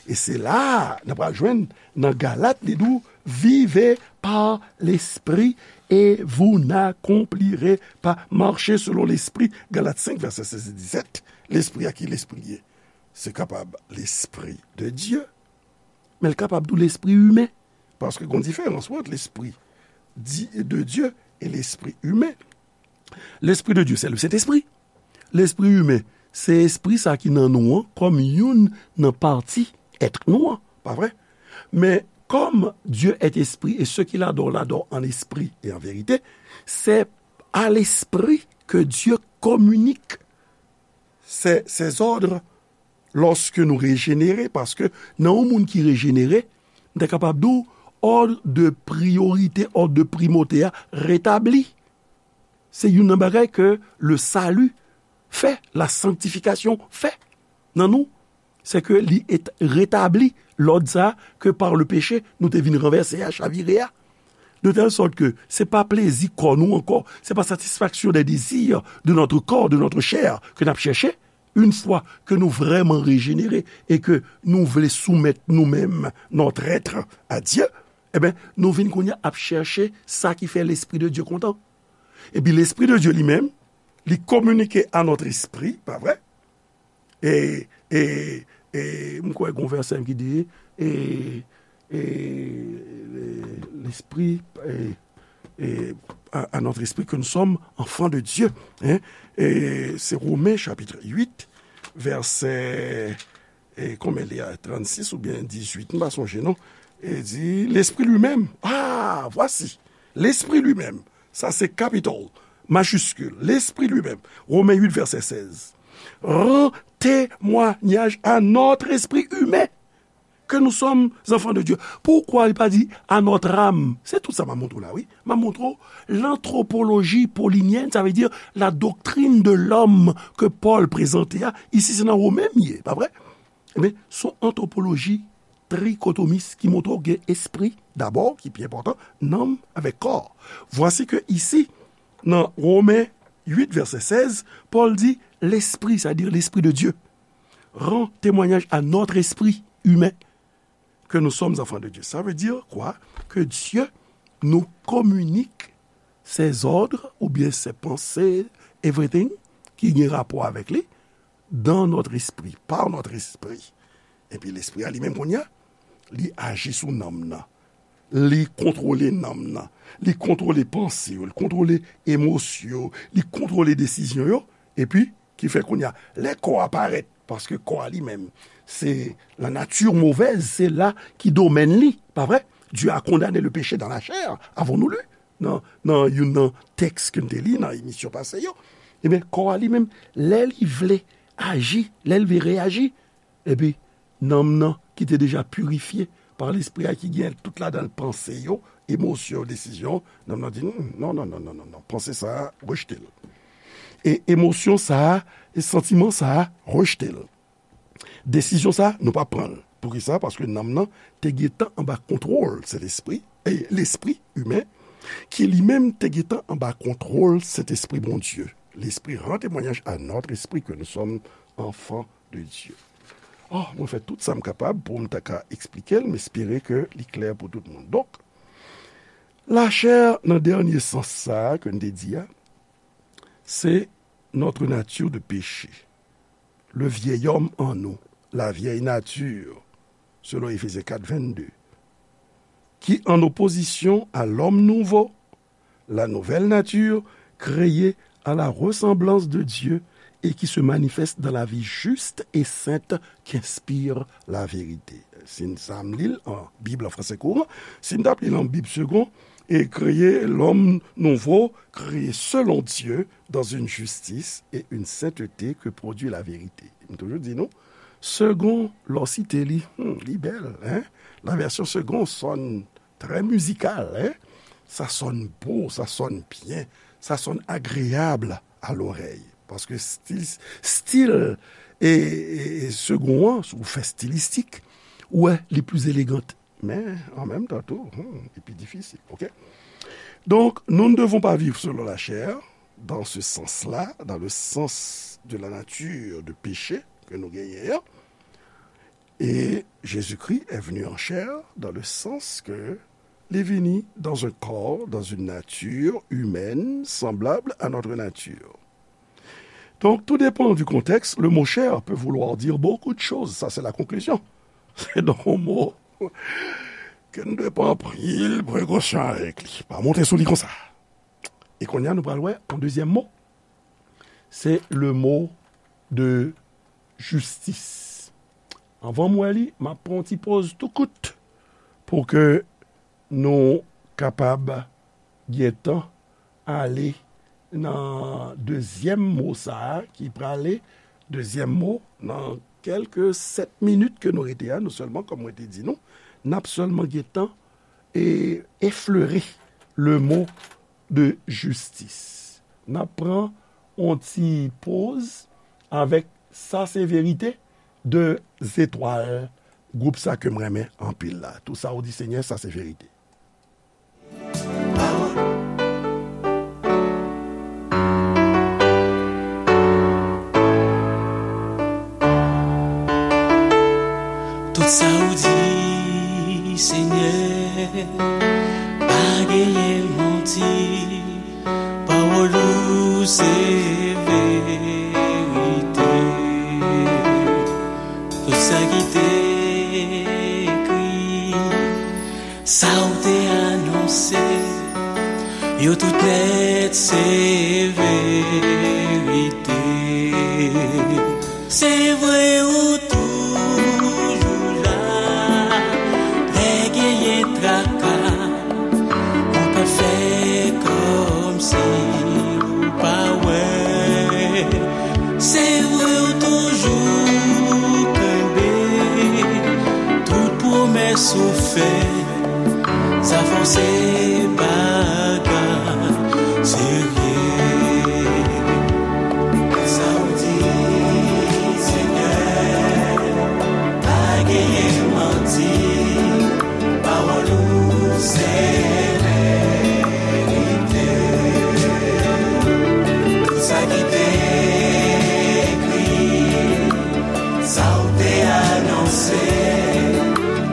E se la a, n ap pral jwenn nan Galat, li di w, vivez par l'esprit et vous n'accomplirez pas, marchez selon l'esprit, Galat senk, vèsè sèz e disèt. Lespri a, ki lespri l ye? Se kapab Lespri de Dye, men l kapab tou lespri imen. Paske gon diferans ant lespri di, de Dye e lespri imen. Lespri de Dye, se le Sentespri. Lespri imen, se espri sa ki nan nou an, kòm youn nan pati èt nou an, pa vre? Men, comme Dieu est esprit, et ceux qui l'adorent l'adorent en esprit et en vérité, c'est à l'esprit que Dieu communique ses, ses ordres lòske nou rejenere, paske nan yon moun ki rejenere, m ta kapab di w, òd de priyorite, òd de primòte a retabli. Se youn nan bagay ke le salut fè, la sanctification fè nan nou, se ke li retabli lòd sa ke par le péché nou te vin ranvèse a, chavire a. De telle sorte que se pa plezi kò nou ankò, se pa satisfaction des désirs de notre corps, de notre chair ke n ap chèche. Une fois que nou vrèman rejenere e ke nou vle soumèt nou menm, notre être, à Dieu, e ben, nou vin kounye a ap chèche sa ki fè Lespri de Dye kontan. Epi Lespri de Dye li menm, li kominike à notre esprit, pa vre? E, e, e, m kwè gon vèsè ki di, e, e, e, l'esprit, e, e, à, à notre esprit que nous sommes enfants de Dieu. Hein? E se Romen chapit uit, vèsè, e konbyen li a, trannsis oubyen dizuit, m pa sonje non. E di, l'esprit lui-même, ah, voici, l'esprit lui-même, sa se capital, majiskil, l'esprit lui-même, Romen uit vèsè sèz, rend témoignage à notre esprit humain que nous sommes enfants de Dieu. Poukwa li pa di à notre âme? Se tout sa m ap montre w la, wi. M ap montre w l'anthropologie paulinyèn, sa vle di la doctrine de l'homme ke Pòl prezante a. Isi, se nan Romen m ye, pa vre? Ebyen, se yon antwopoloji trikotomis ki montre w gen espri, dabò, ki pi enpòtan, nanm avèk kò. Vwasi ke isi, nan Romen uit, vèsè sèz, Pòl di, l'esprit, c'est-à-dire l'esprit de Dieu, rend témoignage à notre esprit humain que nous sommes enfants de Dieu. Ça veut dire quoi? Que Dieu nous communique ses ordres ou bien ses pensées, everything ki gen rapò avèk li, dans notre esprit, par notre esprit. Epi lespri a li menm kounye a, li aji sou nanm nan. Li kontwole nanm nan. Li kontwole panse yo, li kontwole emosyon yo, li kontwole desizyon yo. Epi, ki fè kounye a, lè kò a parèt, paske kò a li menm, se la nature mauvaise, se la ki domèn li, pa vre? Dieu a condamné le péché dans la chair, avons-nous lu? Nan, nan youn nan tèks ke n te li nan emisyon pase yo. Ebyen, kò a li menm, lè li vle aji, lè li vle reyaji, epi nanm nan ki te deja pirifye pa Lespri a, ki gen tout ladan l panse yo, emosyon yo, desizyon, nanm nan di, "Hmm, non, non, non, non, non, non, panse sa a, rejte l. E emosyon sa a, e santiman sa a, rejte l. Desizyon sa a, nou pa pran l." Poukisa? Paske nanm nan te gentan anba kontwòl Sentespri, e lespri imen, ki li menm te gentan anba kontwòl Sentespri Bondye. L'Esprit rend témoignage à notre esprit que nous sommes enfants de Dieu. Oh, mwen fè tout sa m kapab pou m ta ka eksplike l, m espere ke li klè pou tout moun. Donk, lachè nan dènye sans sa a ke n te di a, se notre nature de péché, le vieil homme en nous, la vieille nature, selon Éphésiens quatre, vingt-deux, qui, en opposition à l'homme nouveau, la nouvelle nature, créée à la ressemblance de Dieu et qui se manifeste dans la vie juste et sainte qu'inspire la vérité. Si n sa m li l an Bib an fransè kouran, si n t ap li l an Bib segon, et créer l'homme nouveau, créé selon Dieu, dans une justice et une sainteté que produit la vérité. M toujou di nou, segon, lè w site li, hmm, li bèl, hein? La version segon sonne très musicale, hein? Ça sonne beau, ça sonne bien, ça sonne agréable à l'oreille. Paske stil, stil e, e, e segon an, si w fè stilistik, ou wè, li pli elegan. Men, an menm tan tou, hmm, li pi difisil, oke? Donc, nous ne devons pas vivre selon la chair, dans ce sens-là, dans le sens de la nature de péché ke nou genyen an. Et Jésus-Christ est venu en chair dans le sens que li vini dans un corps, dans une nature humaine semblable à notre nature. Donc, tout dépend du contexte. Le mot chair peut vouloir dire beaucoup de choses. Ça, c'est la conclusion. Se donk yon mo ke nou dwe pran anpil prekosyon avèk li. Pa monte sou li konsa. E kounye a, nou pral wè yon dezyèm mo. Se le mot de justice. Anvan m wè li, m ap pran yon ti poz tou kout pou ke nou kapab gentan ale nan dezyèm mo sa a ki prale, dezyèm mo, nan kèlke sèt minit ke nou rete a, nou sèlman, kòm mwen te di nou, n ap sèlman gentan e eflere le mot de justice. N ap pran yon ti poz avèk Sa se verite de Zetwal, gwoup sa ke m renmen anpil la. Tout sa ou di, Senyè, sa se verite. Tout sa ou di, Senyè, pa genyen manti. Pawòl ou se verite. Tout sa ki te ekri, sa ou te anonse, yo tout nèt se verite. Se vre ou toujou la, lè genyen traka, ou pa fè kòmsi ou pa wè. Se vre ou toujou kenbe tout pwomès ou fè. Sa fò se bagay serye. Sa ou di, Senyè, pa genyen manti. Pawòl ou se verite. Tout sa ki te ekri, sa ou te anonse,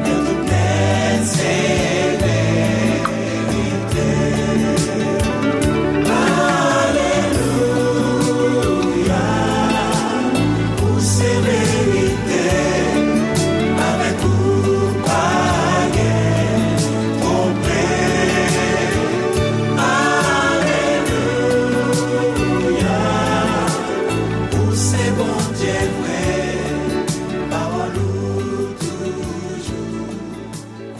yo tout nèt se verite. Alelouya, ou se verite, avèk ou pa gen twonpe. Alelouya, ou se Bondye vre, pawòl ou toujou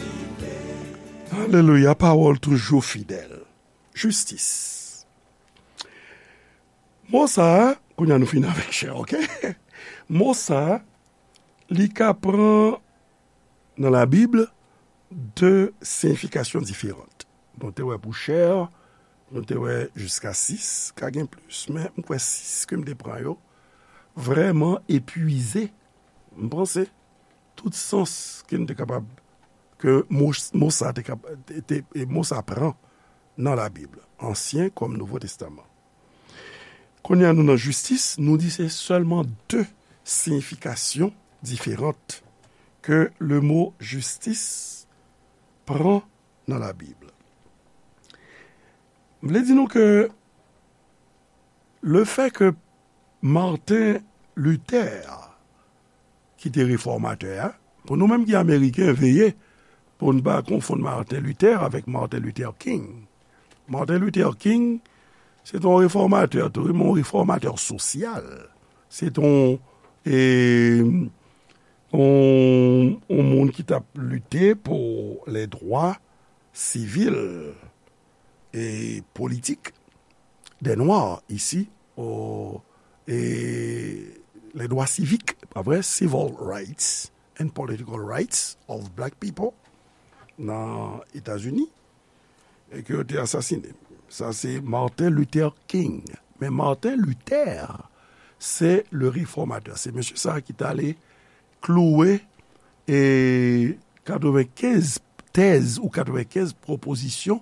vivan. Alelouya, pawòl toujou fidèl. Jistis. Mo sa a, kounye a nou fini avèk chè, oke? Mo sa a, li ka pran nan Labib de siyifikasyon diferan. Nou te wè pou chè, nou te wè jiska sis, ka gen plis, men m kwè sis ke m te pran yo vrèman epuize, m panse, tout sans ke n te kapab, ke mo, mo sa te kap-, te, te, e mo sa pran nan Labib, Ansyen kòm Nouvo Testaman. Kounye a nou nan jistis, nou di se sèlman de siyifikasyon diferan ke le mo jistis pran nan Labib. M vle di nou ke le fè ke Martin Luther ki te refòmatè a. Pou nou menm ki Ameriken, veye pou n pa konfonn Martin Luther avèk Martin Luther King. Martin Luther King, se te yon refòmatè tou, wi, men yon refòmatè sosyal. Se te yon, e, yon, yon moun ki t ap lite pou lè dwa sivil e politik dè Nwa isi, o, e, les droits civiques, pa vre, civil rights and political rights of black people nan Etazini, e ke yo te asasine. Sa se Martin Luther King. Men Martin Luther, se le réformateur. Se mesye sa ki t ale klouwe, e, katrevenkenz tèz ou katrevenkenz pwopozisyon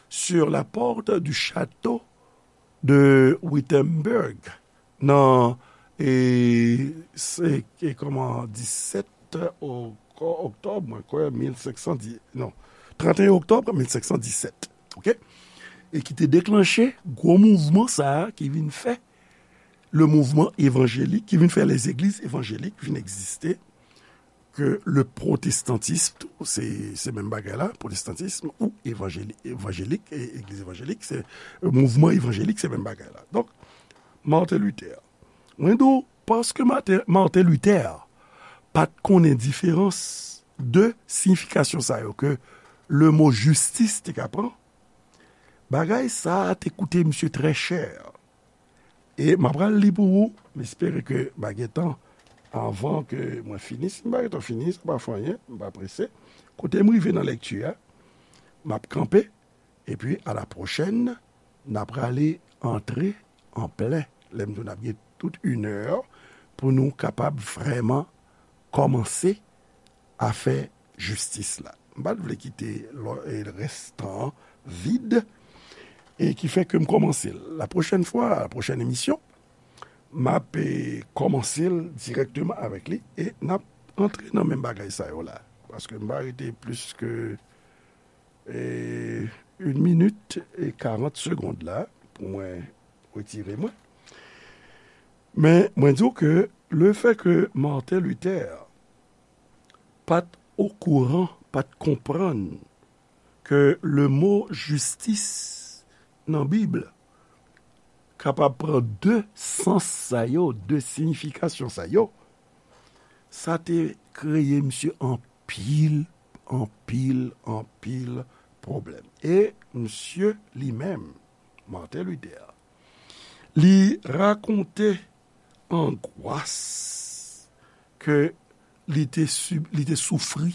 sur la porte du château de Wittenberg nan, e, se, e, kòman, disèt oko-, oktòb, mwen kwè, mil senk san dix, non, trannteyen oktòb mil senk san disèt, oke? E ki te deklanche gwo mouvman sa a ki vin fè le mouvman evanjelik, ki vin fè les églises évangéliques vin egziste, ke le protestantisme tou, se, se menm bagay la, protestantisme ou evanjeli-, evanjelik, e, egliz evanjelik, se, e, mouvman evanjelik, se menm bagay la. Donk, Martin Luther. Mwen di w, paske Martin, Martin Luther pa t konnen diferans de siyifikasyon sa yo ke le mo jistis te ka pran, bagay sa a te koute misye trè chè. E m ap pral li pou ou, m espere ke m a gen tan anvan ke mwen fini. Si m pa gen tan fini, sa pa fè anyen, m pa prese. Kote m rive nan lèkti a, m ap kanpe, epi a la pwochèn, n a prale antre an plen lè m di w n ap gen tout inè pou nou kapab vrèman kòmanse afè jistis la. M pa t vle kite lò-, e, rès tan an vid, e ki fè ke m kòmanse l. La pwochèn fwa, la pwochèn emisyon, m ap, e, kòmanse l dirèkteman avèk li, e n ap antre nan menm bagay sa yo la. Paske m pa rete plis ke, e, yon minit e karant segonn la pou mwen retire mwen. Men, mwen di w ke lefè ke Martin Luther pa t okouran, pa t konprann ke le mo jistis nan Bib kapab pran de sans sa yo, de siyifikasyon sa yo, sa te kreye misye anpil, anpil, anpil pwoblèm. E misye li menm, Martin Luther, li rakonte angwas ke li te sib-, li te soufri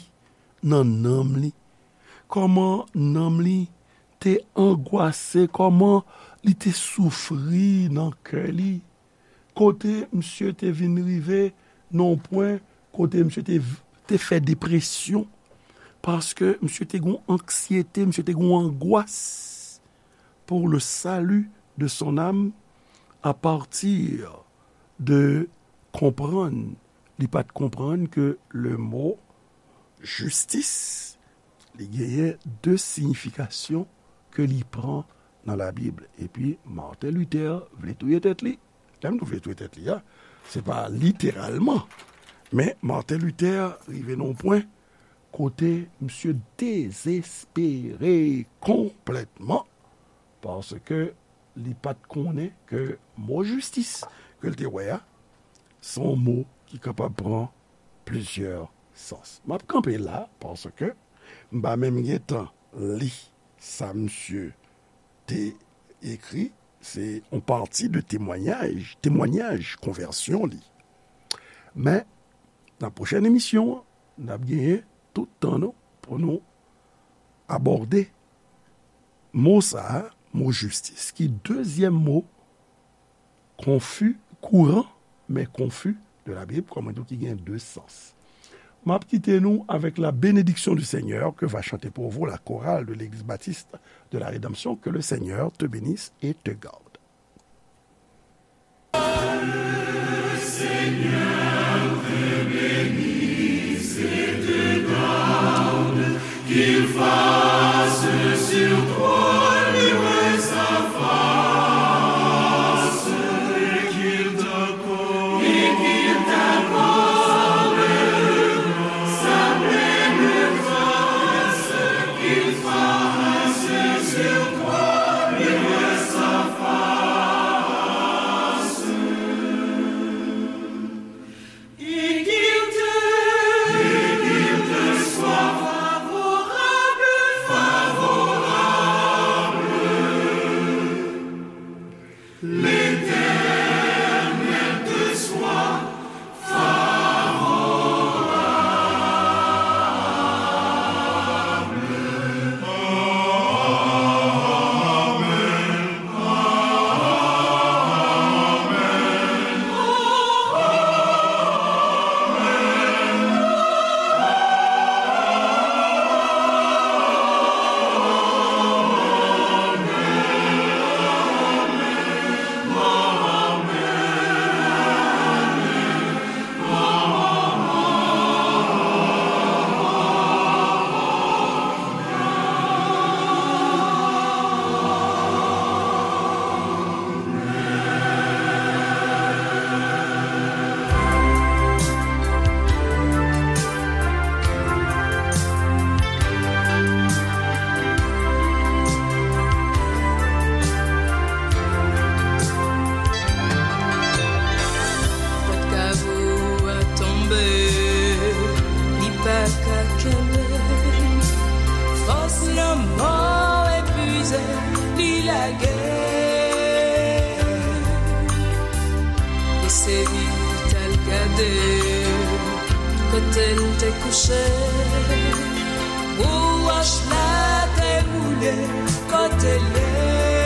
nan nanm li. Kòman nanm li te angwase, kòman li te soufri nan kè li. Kote misye te vin rive nan yon pwen kote misye te, te fè depresyon, paske misye te gon anksyete, misye te gon angwas pour le salut de son âme à partir de konprann, li pa t konprann ke le mo jistis, li genyen de siyifikasyon ke li pran nan Labib. Epi Martin Luther vle touye tèt li. Lè m di vle touye tèt li a, se pa literalman. Men Martin Luther rive nan yon pwen kote misye dezespere konplètman, paske li pa t konnen ke mo jistis ke l te wè a, se yon mo ki kapab pran plizyè sans. M ap kanpe la, paske m pa menm gen tan li sa misye te ekri, se yon pati de temwayaj, temwayaj konvèsyon li. Men, nan pwochèn emisyon an, n ap genyen tout tan nou pou nou abòde mo sa a, mo jistis, ki dezyèm mo konfi, kouran, men konfi de la Bib, kòm mwen di w, ki gen de sans. M ap kite nou avec la bénédiction du Seigneur que va chanter pour vous la chorale de l'église baptiste de la Rédemption. Que le Seigneur te bénisse et te garde. Qu'il fasse sur toi luire sa face, et qu'il t'accorde, et qu'il t'accorde sa pleine grâce, qu'il fasse sur toi luire sa face. Et qu'il te, et qu'il te soit favorable, favorable. L'Éternel te soit favorable. Amen. Pòt kavo a tonbe, li pa ka kenbe. Fòs lanmò epuize, li lage. Eseye t al gade kote l te kouche. Pou wòch la te woule kote l ye.